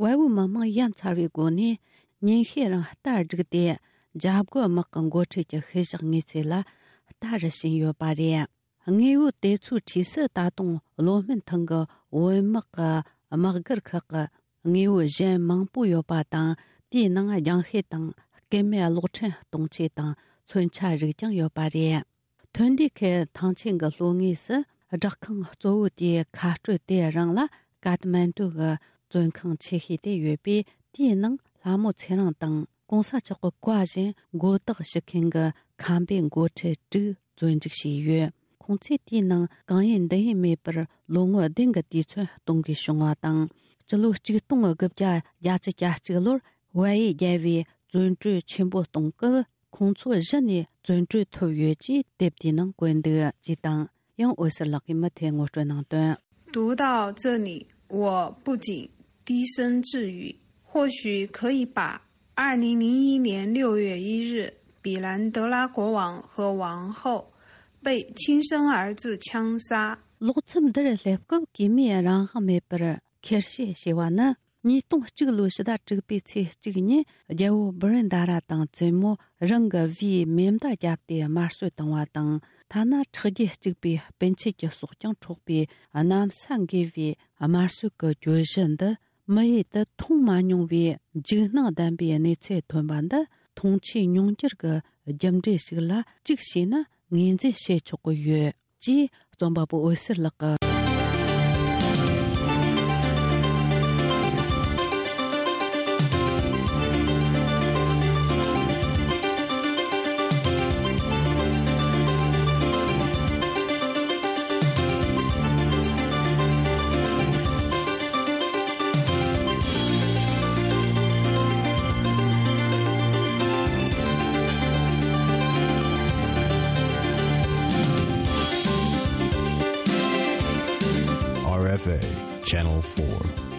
བལ་པོའི་མི་དམངས་ཡ་མཚར་བའི་སྒོ་ནས་ཉིན་ཤས་རིང་རྟ་བསྒྲིགས་ཏེ། འཇབ་རྒོལ་དམག་གི་འགོ་ཁྲིད་ཀྱི་ཤུལ་བཞག་དངོས་རྫས་ལ་རྟ་རུ་བྱིན་ཡོད་པ་རེད། དངོས་པོ་དེ་ཚོའི་འཁྲིས་སུ་ད་དུང་ལོ་སྨད་ཐང་གི་བོད་དམག་གི་དམག་སྒར་ཁག་གི་དངོས་པོ་གཞན་མང་པོ་ཡོད་པ་དང་། དེའི་ནང་རྒྱང་ཤེལ་དང་སྐུད་མེད་གློག་ཕྲན་གཏོང་ཆས་དང་མཚོན་ཆ་རིགས་ཀྱང་ཡོད་པ་རེད། ཐོན་ཌི་ཁེལ་ཐང་ཆེན་གྱི་ལྷོ་ངོས་སུ་སྦྲག་ཁང་གཙོ་བོ་དེའི་ཁ་སྤྲོད་དེ་རང་ལ་ཀ་ཐ་མན་ཌུ་གི་བཙོན་ཁང་ཆེ་ཤོས་དེ་ཡོད་པས། དེའི་ནང་ལྷ་མོ་ཚེ་རིང་དང་གོང་ས་མཆོག་གི་བཀའ་བཞིན་མགོ་བཏགས་ཞུ་མཁན་གྱི་ཁམས་པའི་འགོ་ཁྲིད་དྲུག་བཙོན་འཇུག་བྱས་ཡོད། ཁོང་ཚོས་དེའི་ནང་གང་ཡིན་འདི་ཡིན་མེད་པར་ལོ་ངོ་བདུན་གྱི་དུས་ཚོད་གཏོང་དགོས་བྱུང་བ་དང་། སྤྱི་ལོ་གཅིག་སྟོང་དགུ་བརྒྱ་བརྒྱད་ཅུ་གྱ་གཅིག་ལོར་བལ་ཡུལ་རྒྱལ་བོས་བཙོན་གྲོལ་ཆེན་པོ་གཏོང་སྐབས། ཁོང་ཚོ་གཞི་ནས་བཙོན་གྲོལ་ཐུབ་ཡོད་ཅེས་དེབ་དེའི་ནང་བཀོད་འདུག་ཅེས་དང་། ཡང་འོད་ཟེར་ལགས་ཀྱིས་མུ་མཐུད་ངོ་སྤྲོད་གནང་དོན། 读到这里，我不禁低声自语，或许可以把二零零一年六月一日，比兰德拉国王和王后被亲生儿子枪杀。 ལོག་མཚམས་འདིར་སླེབས་སྐབས། གོས་མེད་རང་དབང་མེད་པར་ཁེར་བཤད་བྱས་པ་ནི། ཉིས་སྟོང་གཅིག་ལོའི་ཕྱི་ཟླ་དྲུག་པའི་ཚེས་གཅིག་ཉིན། རྒྱལ་པོ་བྷི་རེན་དཱ་ར་དང་བཙུན་མོ་རང་གི་བུས་མེ་མདའ་བརྒྱབ་སྟེ་དམར་གསོད་བཏང་བ་དང་། ཐ་ན་ཁྲག་རྒྱུད་གཅིག་པའི་སྤུན་མཆེད་ཀྱི་སྲོག་ཀྱང་འཕྲོག་པའི་གནམ་ས་འགུལ་བའི་དམར་གསོད་ཀྱི་གྱོད་གཞི་འདི། མི་ཡུལ་དུ་མཐོང་མ་མྱོང་བའི་འཇིགས་སྣང་ལྡན་པའི་གནས་ཚུལ་ཐོན་པ་འདི། མཐོང་ཆོས་མྱོང་འགྱུར་གྱི་རྒྱུ་འབྲས་ཤིག་ལ་གཅིག་བྱས་ན་ངོས་འཛིན་བྱེད་ཆོག་གི་ཡོད། ཅེས་རྩོམ་པ་པོ་འོད་ཟེར་ལགས་ཀྱིས། Channel four.